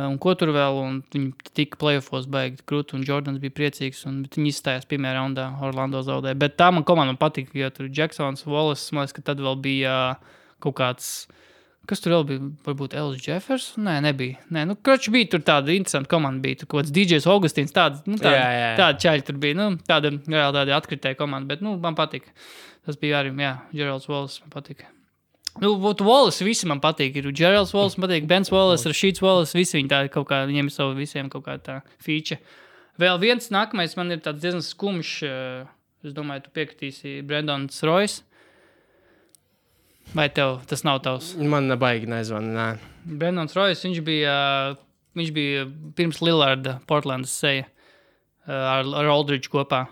S2: un ko tur vēl, un viņi tika playoffos baigi krūti, un Jordans bija priecīgs, bet viņi izstājās pirmajā raundā, Orlando zaudēja. Bet tā man komanda patika, jo tur Jacksons, Wallace, man liekas, ka tad vēl bija kaut kāds... Kas tur vēl bija? Varbūt Ellis Jeffers? Nē, nebija. Kroči bija tur tāda interesanta komanda bija. Tur kaut kāds DJs Augustīns, tāda čaļi tur bija. Tāda atkritēja komanda, bet man patika. Tas bija arī, Geralds Wallace man patika. Wallace visi man patīk. Ir Geralds Wallace man patīk, Bens Wallace, Rasheeds Wallace, visi viņi tādi kaut kā, viņiem ir savu visiem kaut kā tā feature. Vēl viens nākamais man ir tāds diezgan skumjš, es domāju, tu piekritīsi Brandons Royce. Vai tev tas nav tavs?
S1: Man baigi nezvana, nē.
S2: Brandons Royce, viņš bija pirms Lillarda Portlandas seja ar Aldridge kopā.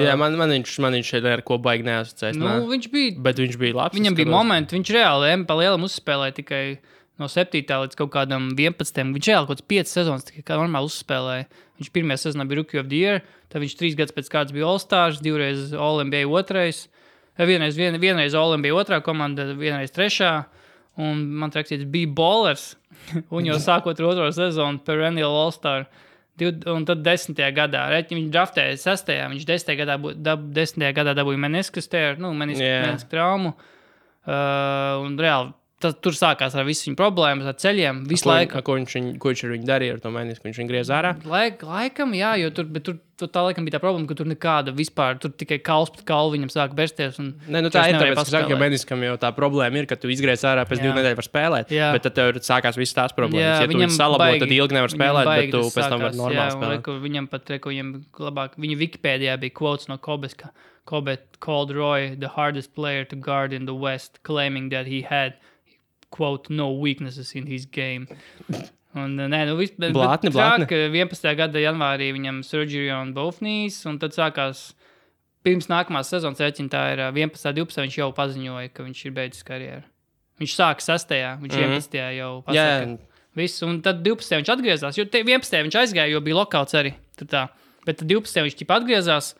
S1: Jā, man viņš šeit ar ko baigi neasociēs.
S2: Viņš bija...
S1: Bet viņš bija labs.
S2: Viņam bija momenti, viņš reāli pa lielam uzspēlēja tikai no 7. līdz kaut kādam 11. Viņš reāli kaut kāds 5 sezonas tikai kā normāli uzspēlēja. Viņš pirmajā sezonā bija Rookie of the Year, tad viņš 3 gadus pēc kārtas bija All-Stars, 2 reiz All-NBA 2. Vienreiz All-NBA 2. komanda, vienreiz 3. Un man rakstīts, bija ballers. Un jau sākot ar 2. sezonu perennial All-Star. Un tad 10. gadā. Viņš draftēja 6. Viņš 10. gadā dabūja meniskas traumu. Un reāli tur sākās ar visu viņa problēmas, ar ceļiem, visu laiku.
S1: Ko viņš ar viņu darīja ar to menisku? Viņš viņu griez ārā?
S2: Laikam, jā, jo tur tā laikam bija tā problēma, ka tur nekāda vispār, tur tikai kauls pret kaulu viņam sāk bersties.
S1: Nē, tā ir tāpēc, ka saka, jo meniskam jau tā problēma ir, ka tu izgriez ārā pēc 2 nedēļu var spēlēt, bet tad tev sākās visas tās problēmas. Ja tu viņu salabo, tad ilgi nevar spēlēt, bet tu pēc tam var normāli spēlēt.
S2: Viņam pat, viņam labāk, viņa Wikipēdijā bija quotes no Kobes, ka Kobe called Roy the hardest player to guard in the West, claiming that he had, quote, no weaknesses in his game. Un,
S1: Blātni.
S2: 11. gada janvārī viņam surgery on both knees, un tad sākās pirms nākamās sezonas rēķina, tā ir 11. 12. viņš jau paziņoja, ka viņš ir beidzis karjeru. Viņš sāka 6. viņš 11. jau pasaka. Visu, un tad 12. viņš atgriezās, jo 11. viņš aizgāja, jo bija lokauts arī. Bet tad 12. viņš ķipa atgriezās,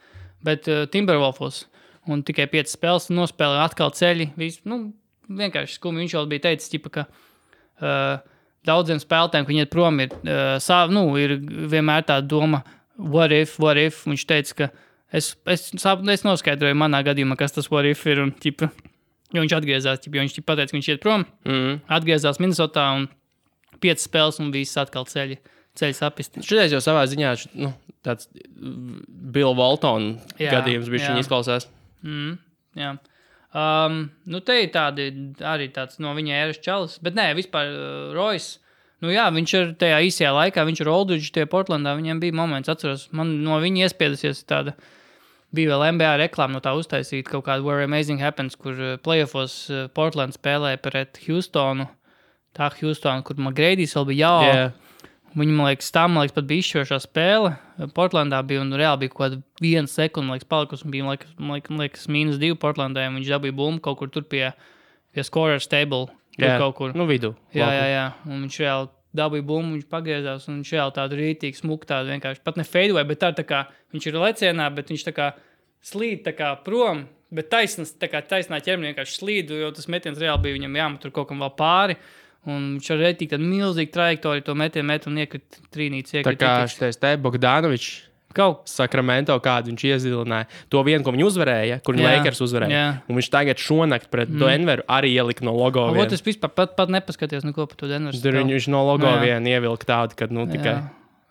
S2: bet Timberwolfos, un tikai 5 spēles nospēlēja atkal ceļi. Vienkārši skumi. Viņš jau bija teicis, ķipa, ka daudziem spēlētājiem, ka viņi iet prom, ir vienmēr tā doma, what if? Viņš teica, ka es noskaidroju manā gadījumā, kas tas what if ir, un ķipa, jo viņš atgriezās, jo viņš pateica, ka viņš iet prom, atgriezās Minnesotā, un 5 spēles, un viss atkal ceļi sapisti.
S1: Šodien jau savā ziņā tāds Bill Walton gadījums bija viņa izklausās.
S2: Jā. Te ir tādi, arī tāds no viņa ēras čalis, bet nē, vispār Royce, viņš ir tajā īsajā laikā, viņš ir Aldridge tie Portlandā, viņiem bija moments, atceros, man no viņa iespiedusies tāda, bija vēl NBA reklāma no tā uztaisīt kaut kādu Where Amazing Happens, kur playoffs Portland spēlēja pret Houstonu, kur McGrady's vēl bija Viņi, man liekas, pat bija izšķirošā spēle. Portlandā bija, un reāli bija kaut kāda 1 sekunda, palikusi, un bija, man liekas, -2 Portlandē, un viņš dabīja bumbu kaut kur tur pie scorers table. Kaut kur.
S1: Vidū.
S2: Jā. Un viņš reāli dabīja bumbu, viņš pagriezās, un viņš reāli tādu rītīgu smuku tādu vienkārši, pat ne fadeaway, bet tā kā, viņš ir lecienā, bet viņš tā kā slīd tā kā prom, bet taisnā ķermenī vienkārši slīd, jo tas metiens reāli bija viņam jāmet tur kaut kam vēl pāri. Un viņš ar rētīgi tādu milzīgu trajektoriju to metienu un iekrita trīnītes.
S1: Tā kā šitais Bogdanovičs Sakramento kādu viņš iezilināja. To vienu, ko viņi uzvarēja, kur viņi Lakers uzvarēja. Un viņš tagad šonakt pret Denveru arī ielika no logo vienu.
S2: Es vispār pat nepaskatījos neko par to Denveru.
S1: Tur viņš no logo vienu ievilka tādu, kad tikai...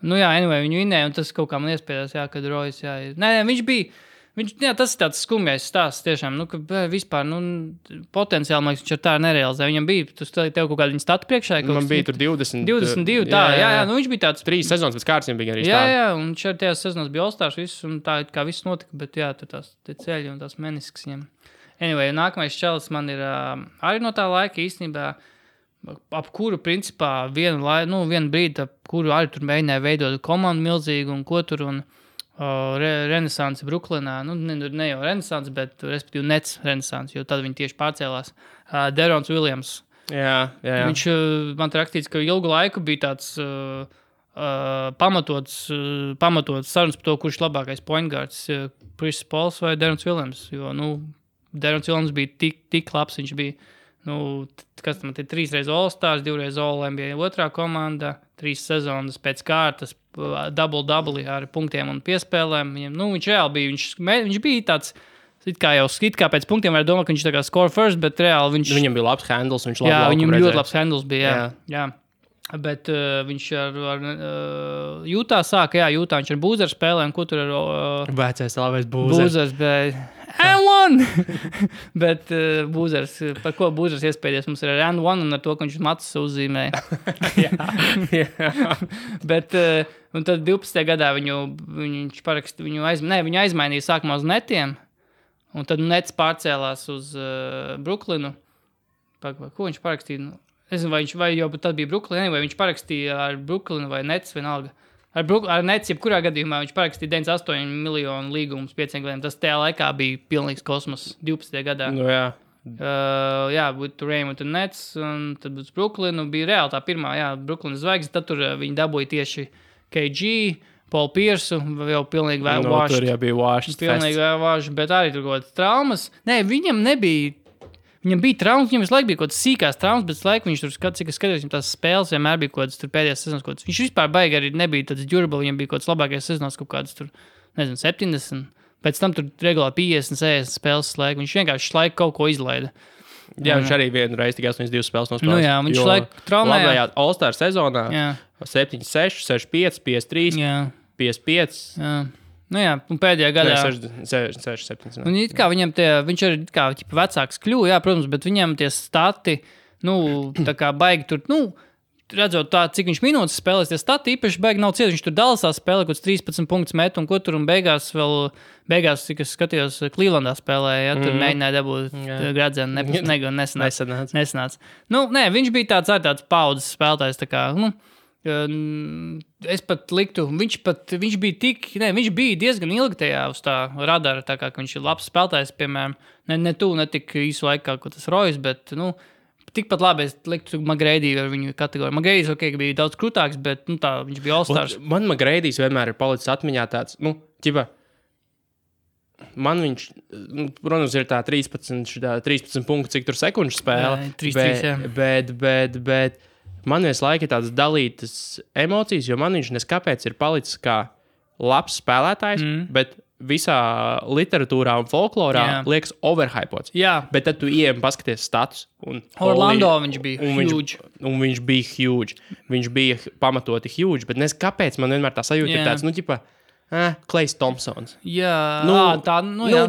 S2: Anyway, viņu vinēja, un tas kaut kā man iespējās, kad Royce, Nē, viņš bija... tas ir tāds skumjais stāsts tiešām, ka vispār, potenciāli, man liekas, viņš ar tā nerealizē. Viņam bija, tev kaut kāda viņa statu priekšā.
S1: Man bija tur 22,
S2: tā, jā, viņš bija tāds...
S1: 3 sezonas pēc kārtas bija arī
S2: stāsts. Jā, un šeit tajās sezonas bija All-Stars viss, un tā kā viss notika, bet jā, tur tās ceļi un tās meniskas viņam. Anyway, nākamais čalis man ir arī no tā laika īstenībā, ap kuru, principā, vienu brīdi, ap kuru arī tur mēģināja veidot komandu milzīgu un ko tur un... Renesanse Bruklinā, ne jau Renesanse, bet respektīvi Nets Renesanse, jo tad viņi tieši pārcēlās. Derons Williams.
S1: Jā.
S2: Viņš man te rakstīts, ka ilgu laiku bija tāds pamatots sarunas par to, kurš labākais point guards, Chris Pauls vai Derons Williams, jo, Derons Williams bija tik labs, viņš bija, kas tam ir 3 reiz All-Stars, 2 reiz All-NBA otrā komanda, 3 sezonas pēc kārtas, double ar punktiem un piespēlēm. Viņš reāli bija, viņš bija tāds, it kā pēc punktiem var domāt, ka viņš tā kā score first, bet reāli viņš...
S1: Viņam bija labs handles, viņš
S2: labi laukumu viņam ļoti labs handles bija, jā. Bet viņš ar Jūtā sāka, Jūtā viņš ar Būzeru spēlē, un ko tur ar...
S1: Vecais labais Būzers.
S2: Būzers, bet... And 1! Bet Būzers, par ko Būzers iespēdies, mums ir ar and 1 un ar to, ka viņš matus uzzīmēja. Bet, un tad 12. gadā viņš parakstīja, viņu aizmainīja sākumā uz Netiem, un tad Nets pārcēlās uz Bruklinu. Ko viņš parakstīja? Es nezinu, vai jau tad bija Bruklina, vai viņš parakstīja ar Bruklinu vai Nets vienalga. Ar Nets, jebkurā gadījumā viņš parakstīja 98 miljonu līgumus 5 gadiem. Tas tajā laikā bija pilnīgs kosmos 12. gadā.
S1: Jā.
S2: Būtu Raymond un Nets, un tad būtu Bruklinu. Bija reāli tā pirmā, Bruklina zvaigznes. Tad tur viņi dabūja tieši KG, Paul Piersu, jau pilnīgi vāši.
S1: Tur jau bija vāši.
S2: Pilnīgi vāši, bet arī tur kaut kādas traumas. Nē, viņam nebija... Viņam bija traumas, viņam visu laiku bija kaut kādas sīkās traumas, bet laiku viņš tur cik es skatījos, viņam tās spēles vienmēr bija kaut kādas tur pēdējās sezonas kaut kādas. Viņš vispār baigi arī nebija tāds durable, viņam bija kaut kāds labākais sezonas kaut kādas tur, 70. Pēc tam tur regulāri 50, 60 spēles laiku. Viņš vienkārši laiku kaut ko izlaida.
S1: Jā, viņš arī vienreiz tikai 82 spēles nospēlēs.
S2: Nu jā, viņš laiku traumējās.
S1: Labajā All-Star sezonā 7-6, 6-5, 5-3, 5-5.
S2: Jā. Nu jā, un pēdējā gadā...
S1: 6-7.
S2: Un it kā viņam viņš arī kā vecāks kļuva, jā, protams, bet viņam tie stati, tā kā baigi tur, redzot tā, cik viņš minūtes spēlēs, tie stati īpaši baigi nav cieti. Viņš tur Dallasā spēlē, kaut 13 punktus met, un ko tur, un beigās, cik es skatījos, Clevelandā spēlēja, ja, tur mēģināja dabūt gradzenu, nesanāca. Nē, viņš bija tāds paudzes spēlētājs, tā kā, es pat liktu, viņš bija diezgan ilgi tajā uz tā radara, tā kā viņš ir labs spēlētājs, piemēram, ne tik īsu laikā, ko tas Rojas, bet, tikpat labi es liktu McGrady ar viņu kategoriju. McGradys, bija daudz krūtāks, bet, tā, viņš bija All-Stars.
S1: Man McGradys vienmēr ir palicis atmiņā tāds, man viņš, protams, ir tā 13 punkti, cik tur sekundžu spēle,
S2: 3-3,
S1: bet man visu laiku ir tādas dalītas emocijas, jo man viņš neskapēc ir palicis kā labs spēlētājs, bet visā literatūrā un folklorā liekas overhypots.
S2: Jā.
S1: Bet tad tu ieejam paskaties status.
S2: Orlando viņš bija huge.
S1: Viņš bija huge. Viņš bija pamatoti huge, bet nes kāpēc man vienmēr tā sajūta ir tāds, Klejs Thompsons.
S2: Jā, jā.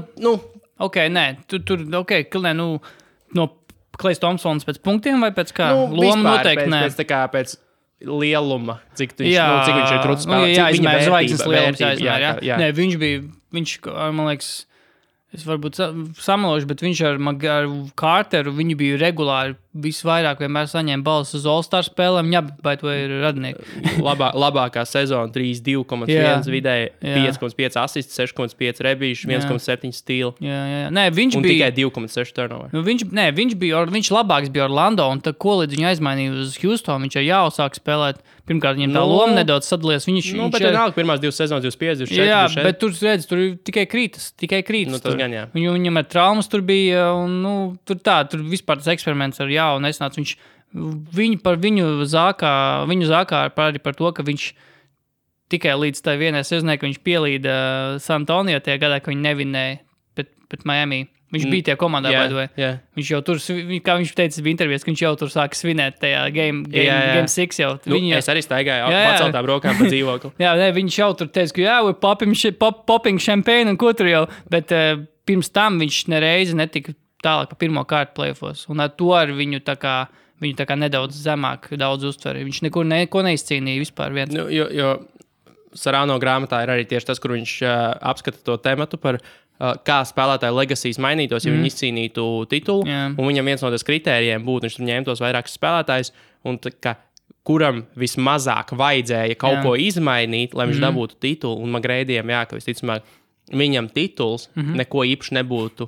S2: Ok, nē, no Klejs Thompsons pēc punktiem vai pēc kā? Loma noteikti, nē.
S1: Pēc lieluma, cik viņš ir krūts spēlētājs.
S2: Jā, izmēr zvaigznes lielums jāizmēr, jā. Nē, viņš, man liekas, es varbūt samalošu, bet viņš ar Carteru, viņi bija regulāri visvairāk vienmēr saņēma balvas uz All-Star spēlēm, vai to ir radinieki.
S1: Labākā sezona 3-2,1 vidēji, 5,5 asists, 6,5 rebīši, 1,7 stīli.
S2: Jā. Nē, viņš
S1: un
S2: bija...
S1: tikai 2,6 turnover.
S2: Viņš labāks bija Orlando, un tad ko līdz viņu aizmainīja uz Houston, viņš jau jāsāk spēlēt. Pirmkārt, viņam tā loma nedaudz sadalies.
S1: Bet vienalga, pirmās 2 sezonas 25, 24.
S2: Jā, bet tur redz, tur tikai krītas.
S1: Tas gan, jā.
S2: Viņam ar traumas tur bija, un tur vispār tas eksperiments ar jaunu nesnāca. Viņu zākā arī par to, ka viņš tikai līdz tai vienai sezonai, ka viņš pielīda San Antonio tajā gadā, ka viņi nevinēja pret Miami. Viņš bija tajā komandā, viņš jau tur, kā viņš teica intervijās, ka viņš jau tur sāka svinēt tajā Game 6 jau.
S1: Es arī staigāju paceltām rokām pa dzīvokli.
S2: Viņš jau tur teica, ka we're popping champagne un ko tur jau, bet pirms tam viņš nereizi netika tālāk pa pirmo kārtu playoffos. Un ar to ar viņu tā kā nedaudz zemāk daudz uztver. Viņš neko neizcīnīja vispār viens.
S1: Jo Sarāno grāmatā ir arī tieši tas, kur viņš apskata to tematu par kā spēlētāju legasijas mainītos, ja viņi izcīnītu titulu. Un viņam viens no tas kritērijiem būtu, viņš tur ņēma tos vairākus spēlētājus, un kuram vismazāk vajadzēja kaut ko izmainīt, lai viņš dabūtu titulu. Un McGrady'iem, ka visticamāk, viņam tituls neko īpaši nebūtu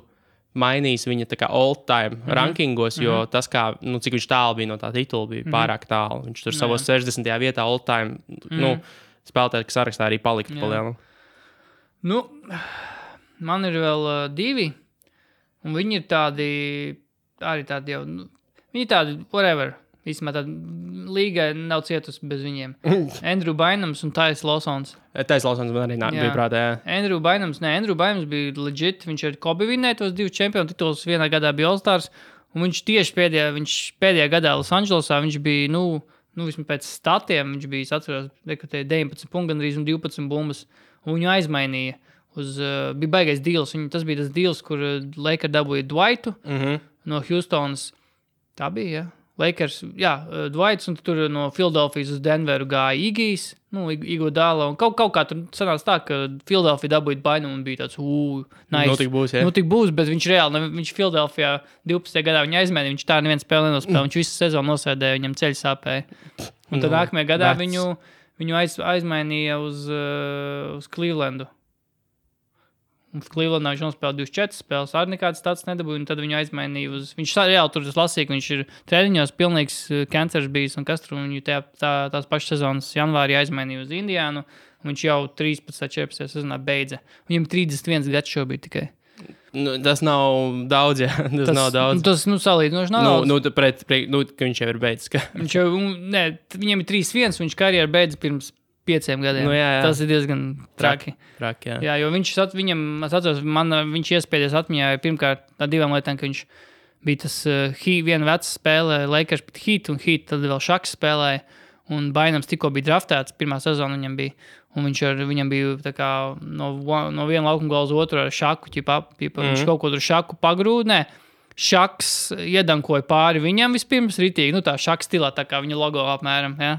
S1: mainījis viņa tā kā all-time rankingos, jo tas, cik viņš tālu bija no tā titula, bija pārāk tālu. Viņš tur savos 60. vietā all-time spēlētāju sarakstā arī paliktu palielu.
S2: Man ir vēl 2, un viņi ir tādi jau, viņi ir tādi whatever. Īstumā tāda līga nav cietusi bez viņiem. Andrew Bynums un Tyus Lawsons.
S1: Tyus Lawsons man arī bija prātā, jā.
S2: Andrew Bynums bija legit, viņš ar Kobe vinnēja tos 2 čempionu titulus, vienā gadā bija All-Stars, un viņš tieši pēdējā gadā Los Andželosā, viņš bija, vismaz pēc statiem, viņš bija, es atceros, 19 punktu gandrīz un 12 bumbas, un viņu aizmainīja. Bija baigais deals. Tas bija tas deals, kur Lakers dabūja Dwightu no Houstonas. Tā bija, jā. Lakers, Dwights, un tur no Philadelphijas uz Denveru gāja Igijs, Iguodala, un kaut kā tur sanāca tā, ka Philadelphia dabūja Bynum un bija tāds, nice. Tik būs, bet viņš reāli, viņš Philadelphia 12. gadā viņa aizmainīja, viņš tā neviens spēle nenospēlēja, viņš visu sezonu nosēdēja, viņam ceļu sāpēja. Un tad nākamajā gadā viņu aizmainīja uz Clevelandu. Un Clevelandā viņš nospēlēja 24 spēles, arī nekāds tāds nedabūja, un tad viņu aizmainīja uz... Viņš reāli tur lasīja, ka viņš ir treniņos pilnīgs kancers bijis, un kas tur viņu tās pašas sezonas janvārī aizmainīja uz Indiānu, un viņš jau 13. sezonā beidza. Viņam 31 gads šobrīd tikai.
S1: Tas nav daudz, jā. Tas nav daudz.
S2: Tas, salīdzinoši nav daudz.
S1: Ka viņš jau ir beidzis.
S2: Viņam ir 3-1, viņš karjeru beidza pirms 5 gadiem.
S1: Jā.
S2: Tas ir diezgan traki.
S1: Jā,
S2: jo viņš iespējas atmiņā pirmkārt ar 2 lietām, ka viņš bija tas viena veca spēle, Lakers pret Heat, un Heat tad vēl Šaks spēlēja, un Bainams tikko bija draftēts, pirmā sezona viņam bija, un viņam bija tā kā no viena laukuma gala uz otru ar Šaku, viņš kaut ko tur Šaku pagrūdnē, Šaks iedankoja pāri viņam vispirms ritīgi, nu tā Šaks stilā, tā kā viņa logo apmēram, ja.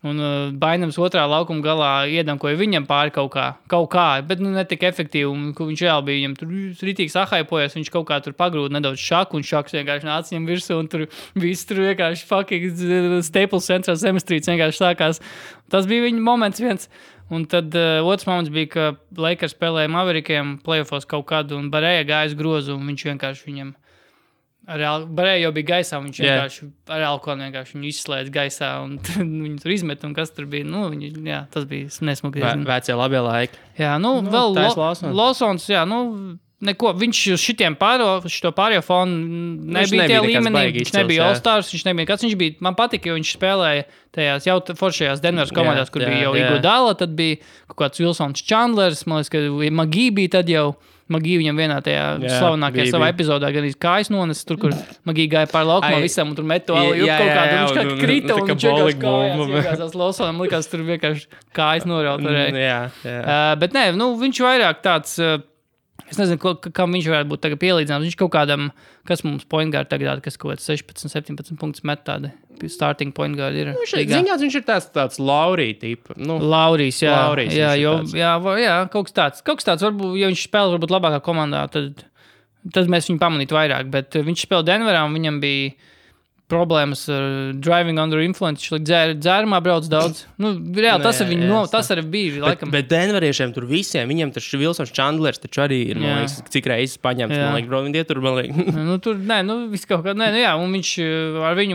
S2: Un Bainams otrā laukuma galā iedankoja viņam pāri kaut kā, bet ne tik efektīvi, un viņš vēl bija, viņam tur ritīgi sahaipojas, viņš kaut kā tur pagrūda nedaudz Šaku, un Šaks vienkārši nāca viņam virsū, un tur viss tur vienkārši fucking Staples Central Zemestrīts vienkārši sākās. Tas bija viņa moments viens. Un tad otrs moments bija, ka Lakers spēlēja Maverikiem playoffos kaut kādu, un Barēja gājas grozu, un viņš vienkārši viņam Barēja jau bija gaisā, viņš vienkārši ar alkoholu vienkārši viņu izslēdz gaisā, un viņu tur izmet, un kas tur bija, tas bija nesmuki.
S1: Vecie labie laiki.
S2: Jā, vēl Lawsons, neko, viņš uz šito pārējo fonu nebija tie līmenī, viņš nebija All-Stars, viņš bija, man patika, jo viņš spēlēja tajās jau foršajās Denveras komandās, kur bija jau Iguodala, tad bija kaut kāds Wilsons Chandlers, man liekas, ka Magī bija tad jau, Magī viņam vienā tajā slavenākajā savā epizodā gan kājas nones, tur, kur Magī gāja pār laukumā visam, un tur met to alu kaut kādu, viņš kā krita, un viņš vienkārši kājās, iegāzās Lawsonam, likās tur vienkārši kājas noraut varēja. Bet nē, viņš vairāk tāds, es nezinu, kam viņš varētu būt tagad pielīdzināms, viņš kaut kādam, kas mums point guard tagad, kas kaut kāds 16-17 punktus met tādi, starting point guard ir.
S1: Viņš ir tāds Laurī tipa.
S2: Laurijs, jā, kaut kas tāds, varbūt, ja viņš spēlē varbūt labākā komandā, tad mēs viņu pamanītu vairāk, bet viņš spēlē Denverā, un viņam bija problēmas ar driving under influence, viņš dzērumā brauc daudz. Reāli, tas arī bija, laikam.
S1: Bet Denveriešiem tur visiem, viņiem taču Wilsons Chandlers taču arī ir, man liekas, cik reizes paņemts, man liekas, bro, viņi tur, man liekas.
S2: Viss kaut kā, un viņš ar viņu,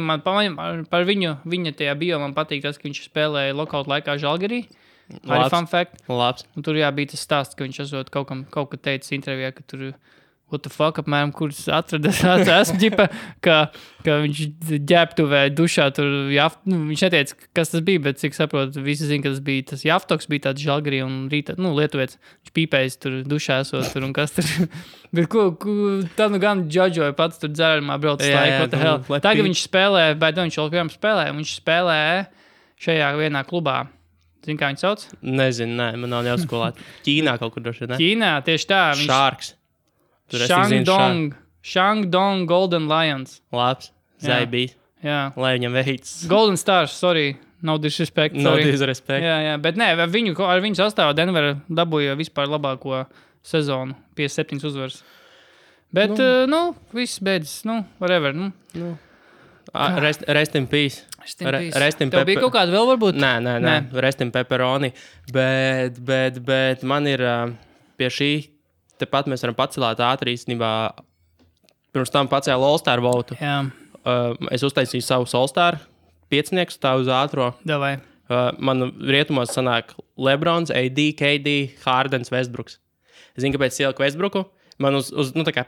S2: par viņa tajā bio man patīk tas, ka viņš spēlēja lockout laikā Žalgirī. Arī fun fact.
S1: Labs.
S2: Un tur bija tas stāsts, ka viņš esot kaut kā teicis intervijā, ka tur what the fuck, apmēram, kurus esmu ģipa, ka viņš ģēptuvē dušā tur, viņš neteica, kas tas bija, bet cik saprotu, visi zina, ka tas bija tas Jaftoks, bija tāds Žalgirī un rīta, lietuviets, viņš pīpējis tur dušā esot tur un kas tur, bet tad gan džadžoja pats tur dzērumā brauc laiku, what the hell. Tagad viņš spēlē, bet viņš joprojām spēlē, un viņš spēlē šajā vienā klubā. Zini, kā viņš sauc?
S1: Nezinu, man nav jāskolāt. Ķīnā kaut kur droši, ne?
S2: Ķīnā, tieši tā.
S1: Sharks.
S2: Shandong Golden Lions.
S1: Labs, Zaibīs.
S2: Jā.
S1: Lai viņam veids.
S2: Golden Stars, sorry. No disrespect.
S1: No disrespect.
S2: Jā, bet nē, ar viņu sastāvā Denver dabūja vispār labāko sezonu, 57 uzvaras. Bet, viss beidzas, whatever.
S1: Rest in peace.
S2: Tev bija kaut kāda vēl varbūt?
S1: Nē. Rest in pepperoni. Bet man ir pie šī, tepat mēs varam pacelāt ātri īstenībā. Pirms tam pacēlu All-Star votu.
S2: Jā.
S1: Es uztaisīju savu All-Star piecnieku stāvu uz ātro.
S2: Davai.
S1: Man rietumos sanāk Lebrons, AD, KD, Hardens, Westbrooks. Es zinu, kāpēc ieliku Westbrooku. Man tā kā...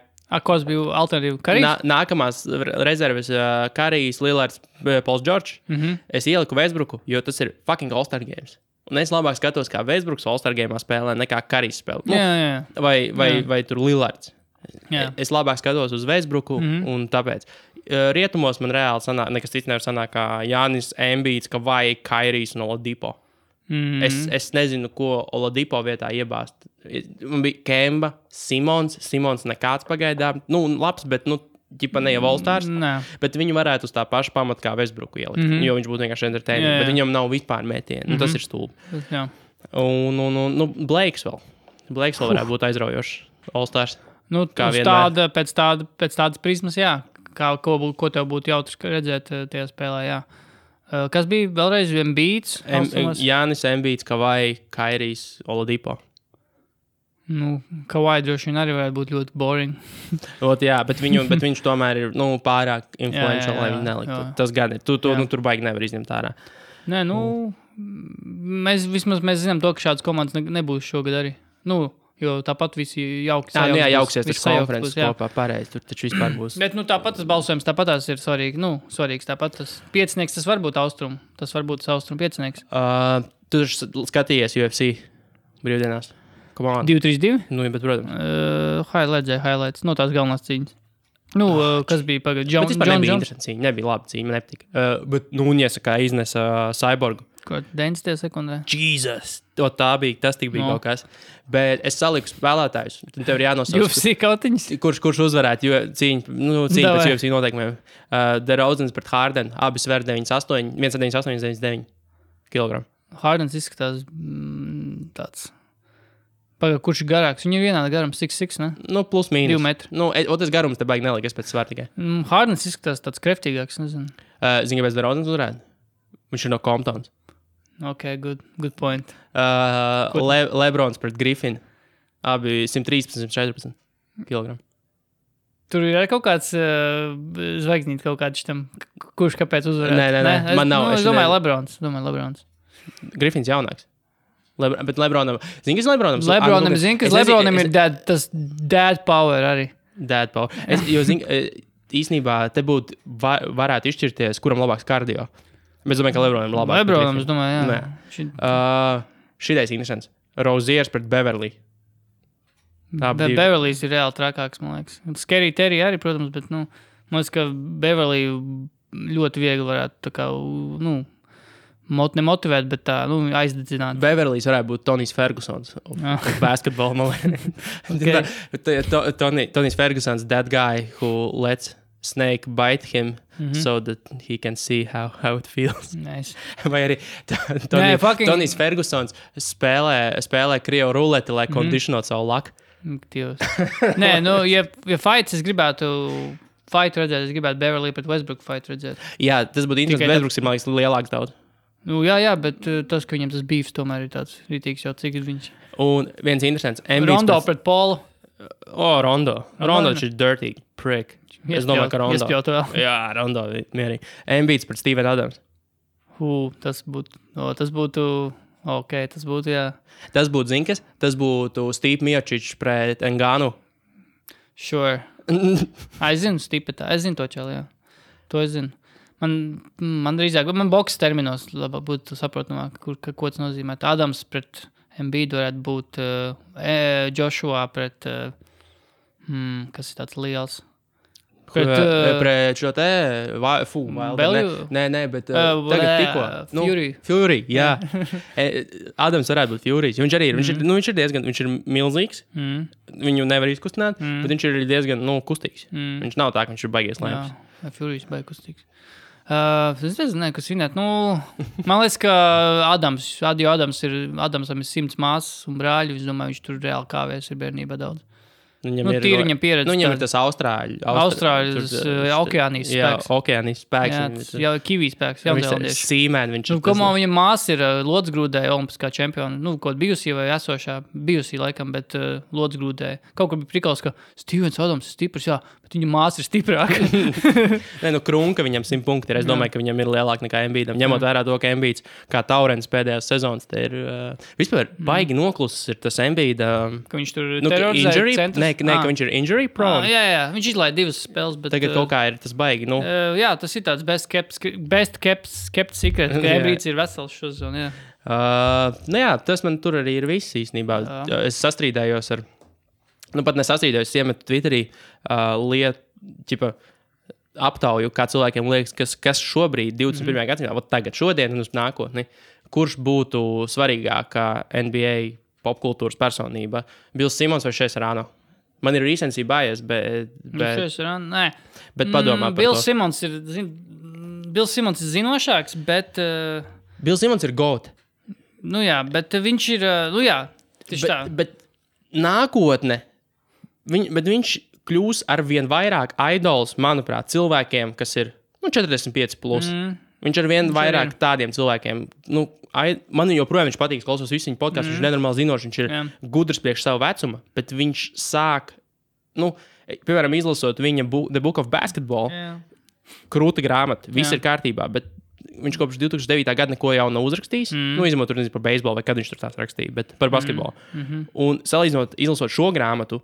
S2: Kas bija alternatīva? Karīs?
S1: Nākamās rezerves Karīs, Lillards, Pauls George. Es ieliku Westbrooku, jo tas ir fucking All-Star games. Un es labāk skatos, kā Westbrooks All-Star game'ā spēlē, nekā Karīs spēlē. Vai tur Lillards. Jā. Es labāk skatos uz Westbrooku, un tāpēc rietumos man reāli sanāk, nekas cits nevar sanāk kā Jānis Embiids, vai Kairijs un Oladipo. Es nezinu, ko Oladipo vietā iebāzt. Man bija Kemba, Simons nekāds pagaidām. Labs, bet, ģipa ne jau All-Stars. Bet viņu varētu uz tā paša pamata kā Westbrooku ielikt, jo viņš būtu vienkārši entertaining, bet viņam nav vispār metieni. Tas ir stulbi.
S2: Jā.
S1: Un Blakes vēl. Blakes vēl varētu būt aizraujošs All-Stars.
S2: Pēc tādas prizmas, jā. Ko tev būtu jautrs redzēt tajā spēlē, jā. Kas bija vēlreiz Embiids?
S1: Jānis Embiids, vai Kairijs, Oladipo.
S2: Kawhi droši vien arī varētu būt ļoti boring.
S1: Jā, bet viņš tomēr ir pārāk influential, lai viņu neliktu. Tas gan ir. Tur baigi nevar izņemt ārā.
S2: Nē, mēs zinām to, ka šādas komandas nebūs šogad arī. Jo tāpat visi jauki sajauks.
S1: Jauksies tas konferences kopā, pareizi. Tur taču vispār būs.
S2: Bet tāpat tas balsojums, tāpat tās ir svarīgi. Svarīgs tāpat tas piecinieks, tas var būt Austrum. Tas var būt Austrum piecinieks.
S1: Tu skatījies UFC brīvdienās?
S2: 2-3-2?
S1: Bet, protams.
S2: Highlights. Tās galvenās cīņas. Nu, kas bija pagad?
S1: Bet vispār nebija interesanti cīņa, nebija labi cīņa, man nepatika. Bet Nūņiesa kā iznesa Cyborgu.
S2: Ko, 90. sekundē?
S1: Jesus! Tas tik bija kaut kas. Bet es saliku spēlētājus. Tev ir jānosauc.
S2: UFC kautiņas?
S1: Kurš uzvarētu, jo cīņa pēc UFC noteikumiem. DeRozans pret Harden, abi sver 98, 198, 99 kg.
S2: Hardens izskatās tāds... Pagad, kurš ir garāks? Viņam ir vienāda garums 6'6", ne?
S1: Nu, plus mīnus.
S2: 2 metri.
S1: Nu, tas garums te baigi nelika, es pēc svēr tikai.
S2: Hardens izskatās tāds kreftīgāks, nezinu.
S1: Zini, kāpēc DeRozans uzvarētu? Viņš ir no Comptons.
S2: Ok, good point.
S1: Lebrons pret Griffin. Abi 113, 114 kg.
S2: Tur ir kaut kāds zvaigznīt kaut kāds šitam, kurš kāpēc uzvarētu?
S1: Nē, man nav.
S2: Es domāju Lebrons.
S1: Griffins jaunāks. Bet Lebronam... Zini, kas Lebronam?
S2: Lebronam ir tas dad power arī.
S1: Dad power. Jo, zini, īsnībā te būtu varētu izšķirties, kuram labāks kardio. Bet es domāju, ka Lebronam ir labāks.
S2: Lebronam, es domāju, jā.
S1: Šitais interesants. Roziers pret Beverly.
S2: Beverlys ir reāli trakāks, man liekas. Scary Terry arī, protams, bet, man liekas, ka Beverly ļoti viegli varētu tā kā, nemotivēt, bet tā, aizdedzināt.
S1: Beverlys varētu būt Tonijs Fergusons. Basketball, man liekas. Tonijs Fergusons, that guy who lets snake bite him so that he can see how it feels.
S2: Nice.
S1: Vai arī Tonijs Fergusons spēlē krievu ruleti, lai kondicionot savu laku.
S2: Nē, ja fights es gribētu... Fight redzēt, es gribētu Beverly pret Westbrook fight redzēt.
S1: Jā, tas būtu interesanti. Westbrooks ir, man liekas, lielāks daudz.
S2: Jā, bet tas, ka viņam tas beefs tomēr ir tāds rītīgs jau, cik ir viņš.
S1: Un viens interesants.
S2: Rondo pret Paulu.
S1: Rondo. Rondo ir dirty prick. Es domāju, ka Rondo.
S2: Iespjot vēl.
S1: Jā, Rondo mierīgi. Embiids pret Steven Adams.
S2: Tas būtu, jā.
S1: Tas būtu, zini kas? Tas būtu Steve Miocic pret Enganu.
S2: Sure. Es zinu Stipetā. Es zinu to čeli, jā. To es zinu. Man drīzāk, man boks terminos labāk būtu saprotamāk, ko tas nozīmē. Adams pret Embiidu varētu būt Joshua pret, kas ir tāds liels.
S1: Pret šo te, Nē, bet tagad tikko. Fury, jā. Adams varētu būt Fury. Viņš arī ir, viņš ir diezgan, viņš ir milzīgs. Viņu nevar izkustināt, bet viņš ir diezgan, kustīgs. Viņš nav tā, ka viņš ir baigies lēms.
S2: Jā, Fury ir baigi kustīgs. Es nezinu, kas vinēt. Man liekas, ka Adamsam ir 100 māsas un brāļi. Es domāju, viņš tur reāli kāvēs ir bērnībā daudz. Viņam pieredze.
S1: Viņam ir tas Austrāļu
S2: okeānijas spēks.
S1: Jā, okeānijas spēks.
S2: Jā, Kivī spēks.
S1: Sīmēn viņš ir.
S2: Kamā viņa māsa ir lodsgrūdēja olimpiskā čempiona. Kaut bijusī vai esošā. Bijusī laikam, bet lodsgrūdēja. Kaut kur bija prikals, ka Stevens Adams ir stiprs, jā, bet viņa māsa ir stiprāka.
S1: Krunka viņam 100 punkti ir. Es domāju, ka viņam ir lielāk nekā Embiidam. Ņemot vērā to, ka Embiids kā Taurens pēdējās sezonas, te ir vispār baigi noklusis ir tas Embiida.
S2: Ka viņš tur terorizēja centrus.
S1: Nē, ka viņš ir injury prone.
S2: Jā, viņš izlaid 2 spēles, bet...
S1: Tagad kaut kā ir tas baigi,
S2: Jā, tas ir tāds best kept secret, ka Embiids ir vesels šo zonu, jā.
S1: Tas man tur arī ir viss īstenībā. Es sastrīdējos ar... pat nesastrīdējos, es iemetu Twitterī aptauju, kā cilvēkiem liekas, kas šobrīd, 21. gadsimtā, tagad, šodien un uz nākotni, kurš būtu svarīgākā NBA popkultūras personība? Bills Simons vai Šejs Rāno? Man ir recency bias, bet...
S2: Šejs Rāno, nē.
S1: Bet padomā par
S2: Bills to. Bills Simons ir zinošāks, bet...
S1: Bills Simons ir GOAT.
S2: Jā, bet viņš ir... tieši tā.
S1: Bet nākotne... Bet viņš kļūs ar vien vairāk idols, manuprāt, cilvēkiem, kas ir 45 plus. Viņš ar vien vairāk tādiem cilvēkiem... Man joprojām viņš patīk, klausos visu viņa podcastu, viņš ir nenormāli zinošs, viņš ir gudrs priekš savu vecumu, bet viņš sāk, piemēram, izlasot viņa The Book of Basketball, krūta grāmata, viss ir kārtībā, bet viņš kopš 2009. Gada neko jau nav uzrakstījis, izņemot tur nezinu par beisbolu, vai kad viņš tur tās rakstīja, bet par basketbolu. Un salīdzinot, izlasot šo grāmatu,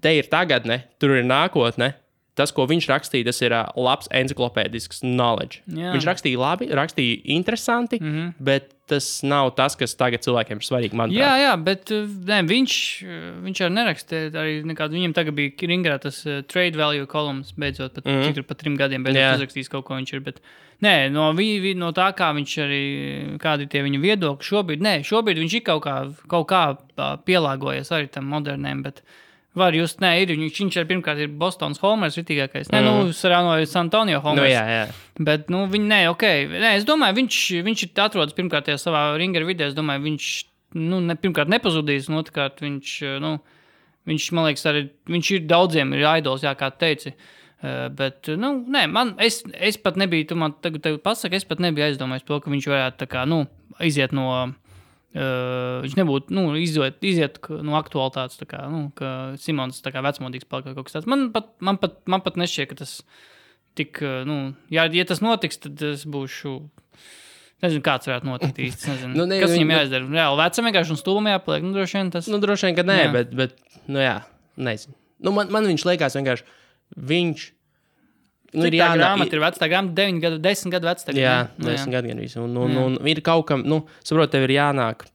S1: te ir tagadne, tur ir nākotne, tas, ko viņš rakstīja, tas ir labs enciklopēdisks knowledge.
S2: Jā.
S1: Viņš rakstīja labi, rakstīja interesanti, bet tas nav tas, kas tagad cilvēkiem ir svarīgi, manuprāt.
S2: Jā, bet viņš arī nerakstīja arī nekādu. Viņam tagad bija Ringerā tas trade value kolumns, beidzot, cik tur pat 3 gadiem beidzot uzrakstījis kaut ko viņš ir, bet no tā, kā viņš arī, kādi ir tie viņa viedokļi, šobrīd viņš ir kaut kā pielāgojies arī tam moderniem, bet var just, viņš arī pirmkārt ir Bostonas Homers ritīgākais. Sarāno ir San Antonio Homers.
S1: Jā.
S2: Bet, es domāju, viņš ir atrodas pirmkārt tajā savā Ringera vidē, es domāju, viņš, pirmkārt nepazudīs, un otrkārt viņš, man liekas, arī, viņš ir daudziem ir idols, kā teici. Bet, es pat nebiju, tu man tagad pasaki, es pat nebiju aizdomājis to, ka viņš varētu tā kā, iziet no... viņš nebūtu, iziet no aktualitātes, tā kā, ka Simons tā kā vecmodīgs palika kaut kas tāds. Man pat nešķiet, ka tas tik, ja tas notiks, tad es būšu, nezinu, kāds varētu notikt īsti, nezinu. Kas viņam jāizdara? Reāli vecam vienkārši un stulbam jāpaliek, droši vien tas.
S1: Droši vien, ka nē, bet, nezinu. Man viņš liekas vienkārši, viņš,
S2: cik tā grāmata ir veca? Tā grāmata 10 gadu veca.
S1: Jā, 10 gadu gan visu. Un ir kaut kam, saprot, tev ir jānāk.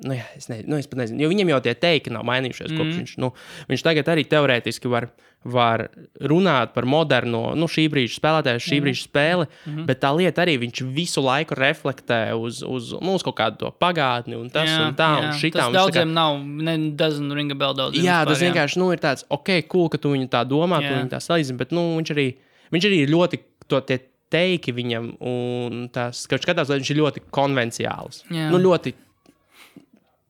S1: Es pat nezinu. Jo viņam jau tie teiki nav mainījušies, kopš viņš tagad arī teorētiski var runāt par moderno, šī brīža spēlētāju, šī brīža spēli, bet tā lieta arī viņš visu laiku reflektē uz kaut kādu to pagātni un tas un tā un šitā.
S2: Tas daudziem nav, doesn't ring a bell daudziem.
S1: Jā, tas vienkārši, ir tāds, cool, ka tu viņu tā domā, tu viņu tā salīdzini, bet, viņš arī ļoti tie teiki viņam un tās, ka skatās, viņš ir ļoti konvenciāls. Ļoti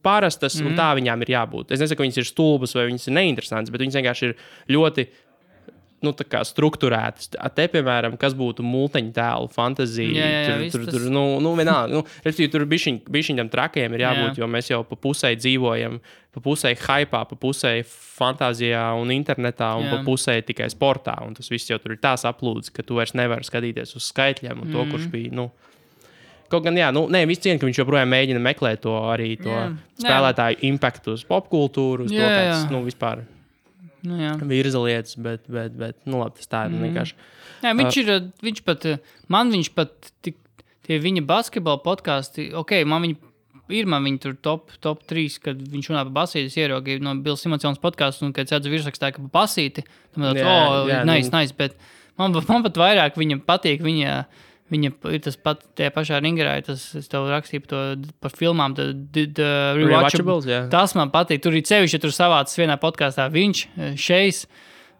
S1: parastas, un tā viņām ir jābūt. Es nesaku, ka viņas ir stulbas vai viņas ir neinteresantas, bet viņas vienkārši ir ļoti, tā kā strukturētas. Te, piemēram, kas būtu multeņu tēlu fantazija, tur vienalga. Respektīvi, tur bišķiņ tam trakajiem ir jābūt, jo mēs jau pa pusē dzīvojam, pa pusē hypā, pa pusē fantāzijā un internetā, un pa pusē tikai sportā, un tas viss jau tur ir tās aplūdes, ka tu vairs nevari skatīties uz skaitļiem, un to, kurš bija, Kaut gan, viss cien, ka viņš joprojām mēģina meklēt to arī spēlētāju impaktu uz popkultūru, uz to kāds, vispār virza lietas, bet, labi, tas tā ir vienkārši.
S2: Jā, viņš pat, tie viņa basketbola podkāsti, man viņi tur top 3, kad viņš runā par basīti, es ieraugu no Bills Simonsons podkāstu, un kad sēdzu virsrakstā, ka par basīti, nice, bet man pat vairāk viņa patīk, viņa ir tas pat tie pašā Ringerā, es tev rakstīju par filmām, the Rewatchables. Tas man patīk. Tur ir sevišķi, ja tur savācis vienā podkāstā viņš, Šejs,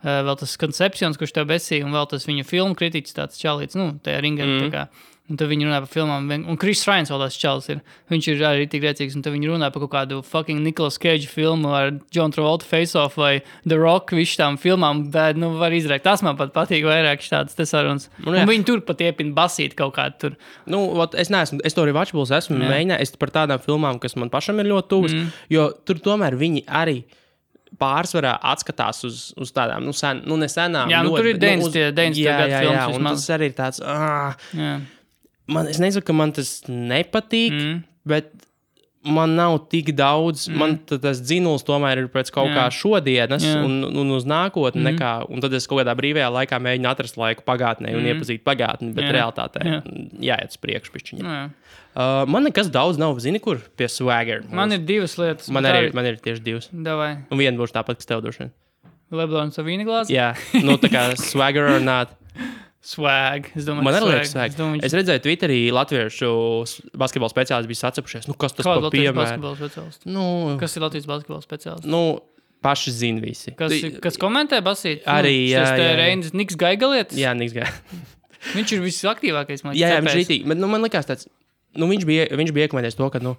S2: vēl tas Conceptions, kurš tev besīja, un vēl tas viņa filmu kritiķis tāds čalīts, tajā Ringerā. Tā kā. Un tad viņi runā par filmām, un Chris Ryan vēl tās čalis ir. Viņš ir arī tik rēcīgs, un tad viņi runā par kaut kādu fucking Nicolas Cage filmu ar John Travolta Face Off vai The Rock, visu tām filmām, bet, var izrēkt. Tas man pat patīk vairāk šādas te sarunas. Un viņi tur pat iepina basīt kaut kādu tur.
S1: Es to Rewatchables esmu mēģinājis par tādām filmām, kas man pašam ir ļoti tuvas, jo tur tomēr viņi arī pārsvarā atskatās uz tādām, nesenām.
S2: Jā, tur ir 90 gadu filmas.
S1: Un tas arī ir tāds, es nesaku, ka man tas nepatīk, bet man nav tik daudz, man tas dzinuls tomēr ir pēc kaut kā šodienas un uz nākotni nekā, un tad es kaut kādā brīvajā laikā mēģinu atrast laiku pagātnē un iepazīt pagātni, bet realitātē jāiet uz priekšu pišķiņā. Man nekas daudz nav, zini, kur pie Swagger.
S2: Man ir 2 lietas.
S1: Man ir tieši 2.
S2: Davai.
S1: Un viena būs tāpat, kas tev droši vien.
S2: Leblons ar vīna glāzi?
S1: Jā, tā kā Swagger or not.
S2: Swag.
S1: Man arī liekas swag. Es redzēju Twitterī latviešu basketbola speciālisti bija sacepušies. Kas tas par piemēru?
S2: Kas ir Latvijas basketbola speciālisti?
S1: Paši zina visi.
S2: Kas komentē basīt?
S1: Arī, jā.
S2: Reinis Niks Gaigalietis?
S1: Jā, Niks Gaigalietis.
S2: Viņš ir visaktīvākais.
S1: Jā, viņš ir rītīgi. Bet man likās tāds, viņš bija iekomentējis to, ka,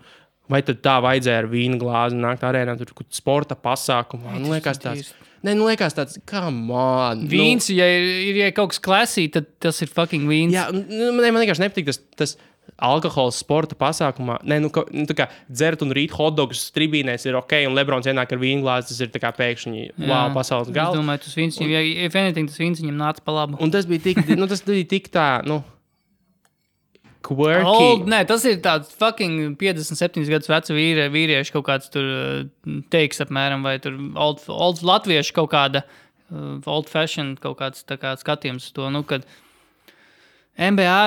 S1: vai tad tā vajadzēja ar vīnu glāzi nākt arēnā, tur sporta pasākumā. Man liekas tāds... liekas tāds, come on.
S2: Vīns, ja kaut kas klasī, tad tas ir fucking vīns.
S1: Jā, man vienkārši nepatīk tas alkohols sporta pasākumā. Tā kā dzert un rīt hotdogus tribīnēs ir ok, un Lebrons ienāk ar vīnglāzi, tas ir tā kā pēkšņi, pasaules gala.
S2: Es domāju, tas vīns, if anything, tas vīns viņam nāca pa labu.
S1: Un tas bija tik tā, quirky.
S2: Tas ir tāds fucking 57 gadus vecu vīrieši kaut kāds tur teiks apmēram, vai tur old latviešu kaut kāda old fashion kaut kāds tā kā skatījums uz to, nu, kad NBA,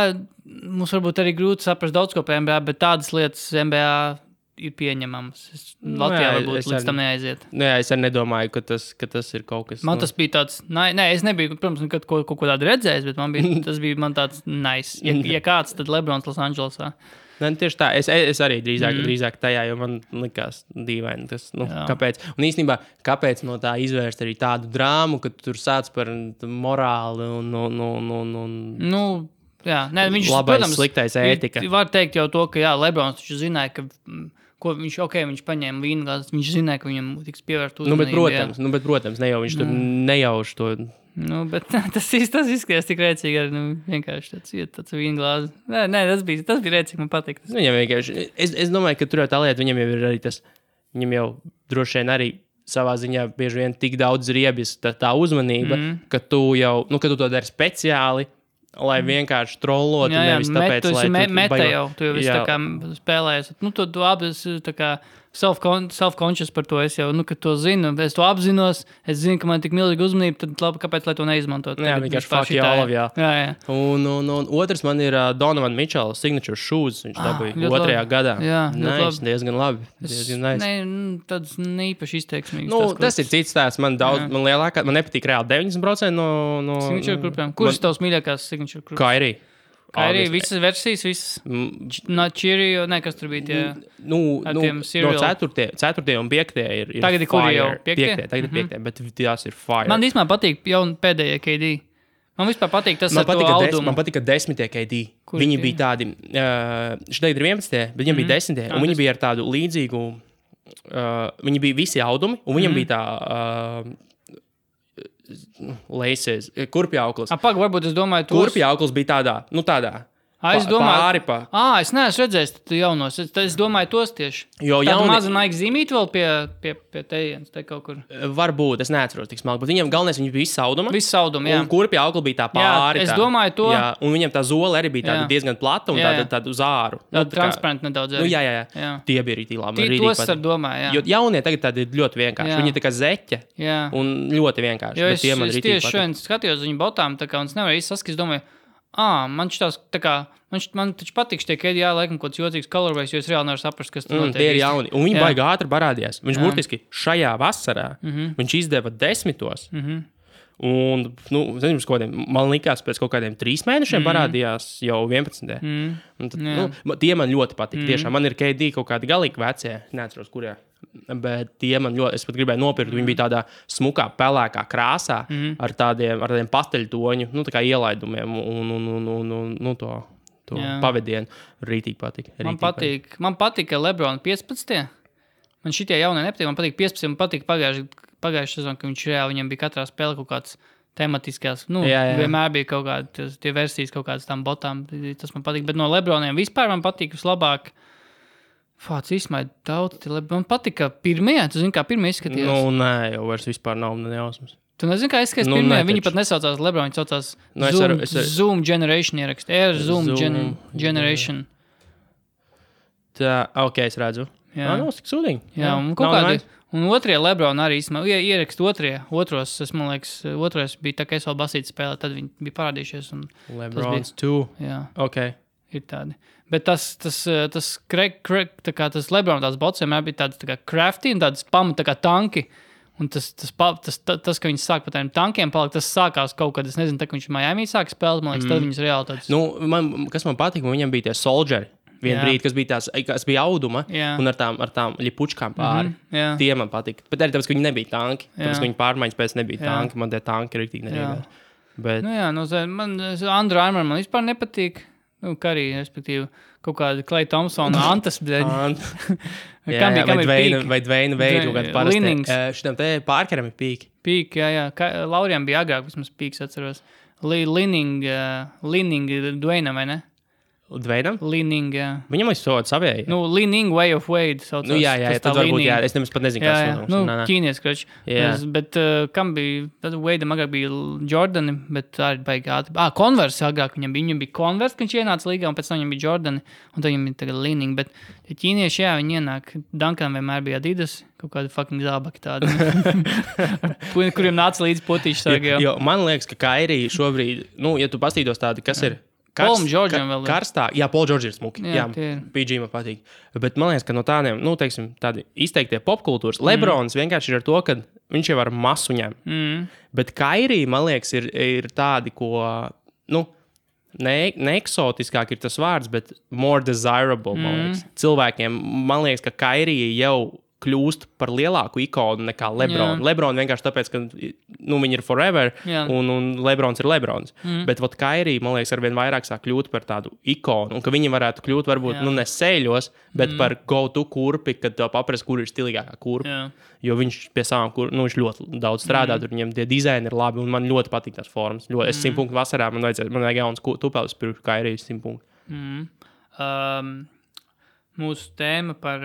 S2: mums varbūt arī grūti saprast daudz ko par NBA, bet tādas lietas NBA ir pieņemamas. Latvijā varbūt līdz tam neaiziet.
S1: Jā, es arī nedomāju, ka tas ir kaut kas...
S2: Man tas bija tāds... Nē, es nebiju, protams, nekad kaut ko tādu redzējis, bet tas bija man tāds nice. Ja kāds, tad Lebrons Los Andželosā.
S1: Ne, tieši tā, es arī drīzāk tajā, jo man likās dīvaini tas, kāpēc. Un īstenībā, kāpēc no tā izvērst arī tādu drāmu, ka tu tur sāc par morāli un
S2: jā, ne, viņš,
S1: labais,
S2: protams,
S1: sliktais ētika.
S2: Var teikt jau to, ka jā, Lebrons taču zināja, ka viņš paņēma vīnu glāzi, viņš zināja, ka viņam tiks pievērst uzmanību.
S1: Bet, protams, ne jau viņš tur nejauš to.
S2: Bet tas izskatījās tik rēcīgi, arī vienkārši tāds vīnu glāzi. Nē, tas bija rēcīgi, man patīk.
S1: Viņam vienkārši, es domāju, ka tur jau tā lieta, viņam jau ir arī tas, viņam jau droši vien arī savā ziņā bieži vien tik daudz riebjas tā uzmanība, ka tu to dari speciāli, lai vienkārši trollotu, nevis tāpēc, lai
S2: tu jau visu tā kā spēlējies. Tu abi tā kā self-conscious par to, es jau, ka to zinu, es to apzinos, es zinu, ka man tik milzīga uzmanība, tad labi, kāpēc, lai to neizmantot?
S1: Jā, vienkārši fuck you all of, jā. Un otrs man ir Donovan Mitchell signature shoes, viņš dabūja otrajā gadā. Jā, diezgan labi.
S2: Nice. Tāds neīpaši izteiksmīgs.
S1: Tas ir cits tās, man nepatīk reāli 90% no
S2: signature grupām. Kurš tavs mīļākās signature grupas? Kairī, visas versijas, visas Cheerio, kas tur bija tie ar tiem cereal.
S1: No 4. un 5. ir
S2: tagad ir
S1: fire.
S2: Jau
S1: 5. Tagad ir 5. Bet tās ir fire.
S2: Man īstenībā patīk pēdējie KD. Man vispār patīk tas ar to audumu.
S1: Man patika 10. KD. Viņi bija tādi, tagad ir 11. bet viņiem bija 10. Un viņi bija ar tādu līdzīgu, viņi bija visi audumi, un viņiem bija tā... Laces, kurpjauklis.
S2: Varbūt es domāju,
S1: kurpjauklis bija tādā.
S2: Es domāju,
S1: pāri.
S2: Es neesmu redzējis jaunos. Es domāju tos tieši.
S1: Tādu
S2: mazu Nike zīmīti vēl pie tejienes, te kaut kur.
S1: Varbūt, es neatceros tik smalki, bet viņiem galvenais, viņi bija visauduma.
S2: Visauduma, jā.
S1: Un kurpjaukli bija tā pāri.
S2: Jā, es domāju to.
S1: Jā, un viņiem tā zole arī bija tāda diezgan plata un tāda uz āru.
S2: Transparenti nedaudz arī.
S1: Jā. Tie bija arī labi.
S2: Tos ar domāju, jā.
S1: Jo jaunie tagad tādi ļoti vienkārši. Viņi tā kā zeķa un ļoti vienkārši.
S2: Jo es tieši šodien skatījos viņu botām, tā kā un es nevaru īsti saskatīt, domāju, man šitās tā kā, man taču patīk šitie KD, laikam kaut kāds jocīgs colorways, jo es reāli nevaru saprast, kas tur notiek.
S1: Tie ir jauni. Un viņi baigi ātri parādījās. Viņš burtiski šajā vasarā, viņš izdeva 10. Un, man likās, pēc kaut kādiem 3 mēnešiem parādījās jau 11. Un tad, tie man ļoti patīk. Tiešām man ir KD kaut kādi galīgi vecie, neatceros, kurē. Bet tie man ļoti, es pat gribēju nopirkt, viņi bija tādā smukā, pelēkā krāsā ar tādiem pasteļtoņu, tā kā ielaidumiem un to pavadienu. Rītīgi patīk.
S2: Man patīk, ka Lebron 15. Man šitie jaunie nepatīk, man patīk 15. Man patīk pagājušajā sezonā, ka viņam bija katrā spēlē kaut kāds tematiskās, vienmēr bija kaut kādi tie versijas kaut kādas tām botām, tas man patīk, bet no Lebroniem vispār man patīk vislabāk. Fāc izsmaid daudz, man patika pirmie, tu zini, kā pirmie izskatījās?
S1: Nē, jau vairs vispār nav nejausmas.
S2: Tu nezini, kā izskatījās pirmie? Viņi pat nesaucās Lebron, viņi saucās Zoom Generation ierakst. Air Zoom Generation.
S1: Tā, es redzu.
S2: Jā.
S1: Tik sūdīgi.
S2: Jā, un kaut kādi. Un otrie Lebron arī ierakst otros, man liekas, otrais bija tā, ka es vēl basīti spēlē, tad viņi bija parādījušies.
S1: Lebrons 2.
S2: Jā.
S1: Ir
S2: tādi. Bet tas Lebron tās bots vienmēr bija tāds tā kā crafty un tāds pamata tā kā tanki. Un tas, ka viņi sāk par tādiem tankiem palikt, tas sākās kaut kad, es nezinu, tā, ka viņš Miami sāk spēlēt, man liekas, tad viņas reāli tāds...
S1: Kas man patīk, viņam bija tie soldieri. Brīdi, kas bija auduma un ar tām ļipučkām pāri. Tie man patīk. Bet arī tāpēc, ka viņi nebija tanki. Tāpēc, ka viņi pārmaiņas pēc nebija tanki. Man tie tanki rīktīgi neriebēs. Bet...
S2: man Under Armour man vispār nepatīk. Kā arī, respektīvi, kaut kāda Klay Thompsona antas.
S1: Vai Dveina Veida kaut kāda parasti. Šitam te Parkeram ir pīki.
S2: Pīki, jā. Laurijam bija agrāk, vismaz pīks atceros. Linning Dwayna, vai ne?
S1: Dveidam?
S2: Leaning, jā.
S1: Viņam ir soda savēja.
S2: Nu, Leaning Way of Wade saucās.
S1: Nu, jā, tad varbūt, jā, es nemaz pat nezinu, kāds
S2: jā. Nu, ķīnies, krač. Bet kam bija, tad Wadeam agrāk bija Jordani, bet tā ir baigi ātri. Converse agrāk viņam bija Converse, kad viņš ienāca līgā, un pēc tam viņam bija Jordani, un tad viņam bija tagad Leaning, bet ķīnieši, jā, viņi ienāk, Duncan vienmēr bija Adidas, kaut kādi fucking zābaki tādi, kuriem nāca līdz potīši sargi.
S1: Jo, man liekas, ka Kairī šobrīd, nu, ja tu pastītos tādi, kas ir
S2: Paul Georgeam vēl ir.
S1: Karstā, jā, Paul George ir smuki. Jā, PG man patīk. Bet man liekas, ka no tādiem, nu, teiksim, tādi izteiktie popkultūras, Lebrons vienkārši ir ar to, ka viņš jau ar masu ņem. Bet Kairī, man liekas, ir tādi, ko, nu, ne eksotiskāk ir tas vārds, bet more desirable, man liekas. Cilvēkiem, man liekas, ka Kairī jau kļūst par lielāku ikonu nekā Lebron. Lebron vienkārši tāpēc, ka nu, viņi ir forever, un Lebrons ir Lebrons. Bet vat Kairī, man liekas, arvien vairāk sāk kļūt par tādu ikonu, un ka viņi varētu kļūt varbūt, nu, ne sēļos, bet par go-to kurpi, kad tev paprast, kur ir stilīgākā kurpa. Jo viņš pie savām nu, viņš ļoti daudz strādā, tur viņam tie dizaini ir labi, un man ļoti patīk tās formas. Es 100 punktu vasarā, man vajag jauns tupelis pirms Kairī 100 punktu.
S2: Mūsu tēma par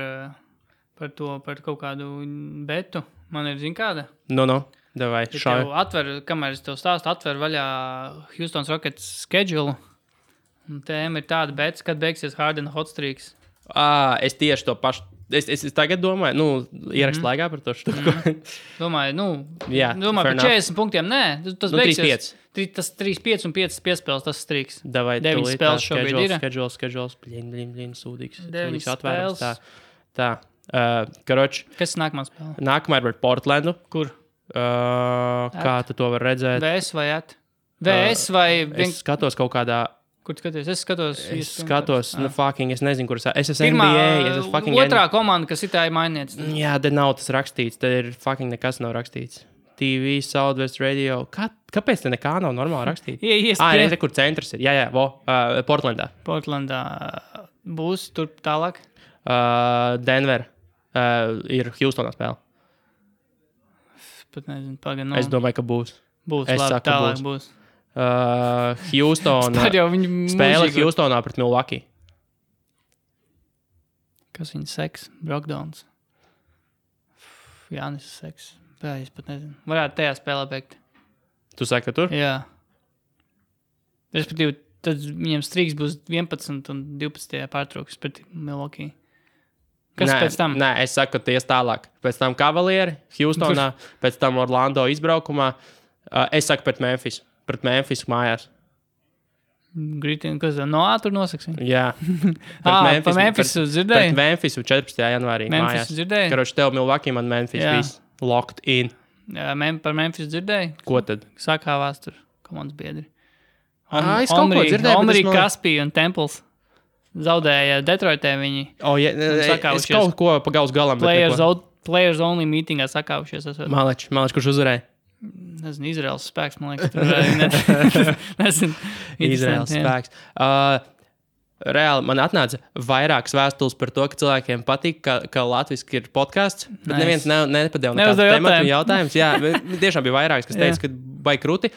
S2: kaut kādu betu. Man ir, zin kāda?
S1: Davai,
S2: šādi. Kamēr es tev stāstu, atver vaļā Houston Rockets schedule. Un tēma ir tāda bets, kad beigsies Harden hot streaks.
S1: Es tieši to pašu. Es tagad domāju, nu, ierakst laikā par to štuku.
S2: Domāju, par 40 punktiem, nē. Tas beigsies. Tas 3-5 un 5 piespēles, tas streaks.
S1: Davai,
S2: 9 spēles šobrīd ir.
S1: Schedules, blin, sūdīgs.
S2: 9 spēles.
S1: Tā. Karoči.
S2: Kas ir nākamā spēle?
S1: Nākamā ir par Portlandu.
S2: Kur?
S1: Kā tu to var redzēt?
S2: VS vai at? VS vai...
S1: Es skatos kaut kādā...
S2: Kur tu skaties? Es
S1: skatos, es nezinu, kuras... Es esmu NBA,
S2: otrā komanda, kas ir tā ir mainīts.
S1: Jā, te nav tas rakstīts. Te ir fucking nekas nav rakstīts. TV, Southwest Radio. Kāpēc te nekā nav normāli rakstīts?
S2: ESPN.
S1: Kur centrs ir. Jā, Portlandā.
S2: Portlandā būs tur tālāk?
S1: Denver. Ir Houstonā spēle.
S2: Pat nezinu, pagaidām.
S1: Es domāju, ka būs.
S2: Būs, labi, tālāk būs.
S1: Houstonā. Spēle Houstonā pret Milwaukee.
S2: Kas viņa seks? Brokdowns. Jānis seks. Es pat nezinu. Varētu tajā spēlē beigt.
S1: Tu saki, ka tur?
S2: Jā. Respektīvi, tad viņiem streaks būs 11 un 12. pārtrauks pret Milwaukee. Kas pēc tam?
S1: Nē, es saku, ka ties tālāk. Pēc tam Cavalieri, Houstonā, pēc tam Orlando izbraukumā. Es saku pret Memphis. Pret Memphis mājās.
S2: Gritin, kas tur nosaksim?
S1: Jā.
S2: Pa Memphis dzirdēji?
S1: Pret Memphis 14. janvārī
S2: Memphis
S1: mājās.
S2: Dzirdēji?
S1: Karoči, tev Milwaukee, man Memphis. Viss locked in.
S2: Jā, par Memphis dzirdēji?
S1: Ko tad?
S2: Sakāvās tur komandas biedri.
S1: Es kaut ko dzirdēju.
S2: Omri, Kaspī un Temples. Zaudēja Detroitē viņi.
S1: Es kaut ko pa gaus galam.
S2: Players only meetingā sakāvušies.
S1: Maleč, kurš uzvarēja?
S2: Nezinu, Izraels spēks, man liekas. Nezinu.
S1: Izraels spēks. Reāli man atnāca vairākas vēstules par to, ka cilvēkiem patīk, ka latviski ir podcasts, bet neviens nepadeva nekādu tematu jautājumus. Jā, tiešām bija vairākas, kas teica, ka vai kruti.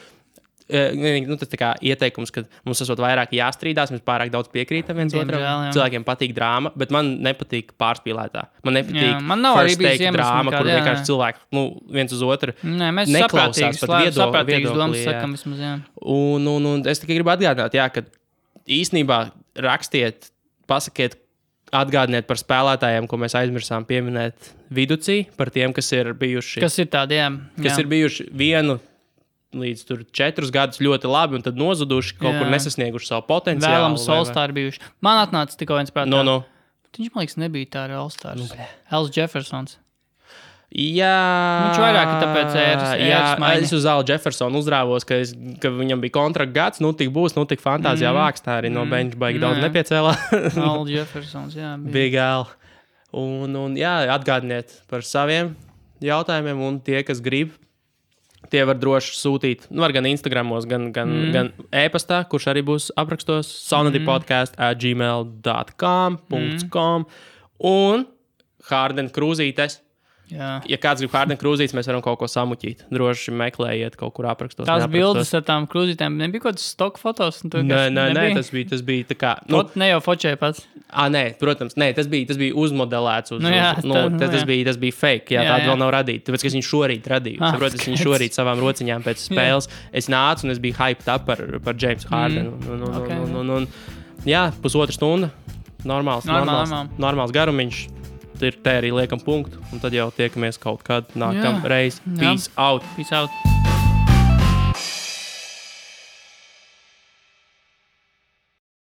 S1: Tas tā kā ieteikums, ka mums esot vairāk jāstrīdās, mēs pārāk daudz piekrītam viens otram. Cilvēkiem patīk drāma, bet man nepatīk pārspīlētā. Man nepatīk first take drāma, kur vienkārši cilvēki viens uz otru neklausās pat viedokli. Un es tikai gribu atgādināt, ka īstenībā rakstiet, pasakiet, atgādiniet par spēlētājiem, ko mēs aizmirsām pieminēt viducī, par tiem, kas ir bijuši.
S2: Kas ir tādi, jā.
S1: Kas ir bijuši 1 līdz 4 gadus ļoti labi, un tad nozuduši, kaut kur nesasnieguši savu potenciālu.
S2: Vēlams All-Star bijuši. Man atnāca tikko viens prātā.
S1: No.
S2: Viņš, man liekas, nebija tā ar All-Stars. Els Jeffersons.
S1: Jā.
S2: Viņš vairāk ir tāpēc ēras maiņa.
S1: Es uz Al Jeffersonu uzrāvos, ka viņam bija kontrakta gads, tik būs, tik fantāzijā vāks, tā arī no bench baigi daudz nepiecēlā.
S2: Al Jeffersons, jā.
S1: Big Al. Un jā, atgādiniet par saviem jautājumiem, un tie, kas grib, tie var droši sūtīt, var gan Instagramos, gan e-pastā, kurš arī būs aprakstos, saunadypodcast@gmail.com. Un Harden krūzītes Ja kāds grib Harden krūzītes, mēs varam kaut ko samuķīt. Droši meklējiet kaut kur aprakstos.
S2: Tās bildes ar tām krūzītēm nebija kaut kāds stock fotos?
S1: Nē, tas bija tā kā...
S2: Ne jau fočēja pats?
S1: Nē, protams, tas bija uzmodelēts. Tas bija fake, tāda vēl nav radīta. Tāpēc, ka es viņu šorīt radīju. Saprotu, es viņu šorīt savām rociņām pēc spēles. Es nācu un es biju hyped up par Jamesu Hardenu. Jā, 1,5 stunda. Normāls garumiņš. Ir te arī liekam punktu, un tad jau tiekamies kaut kad nākamreiz. Peace out!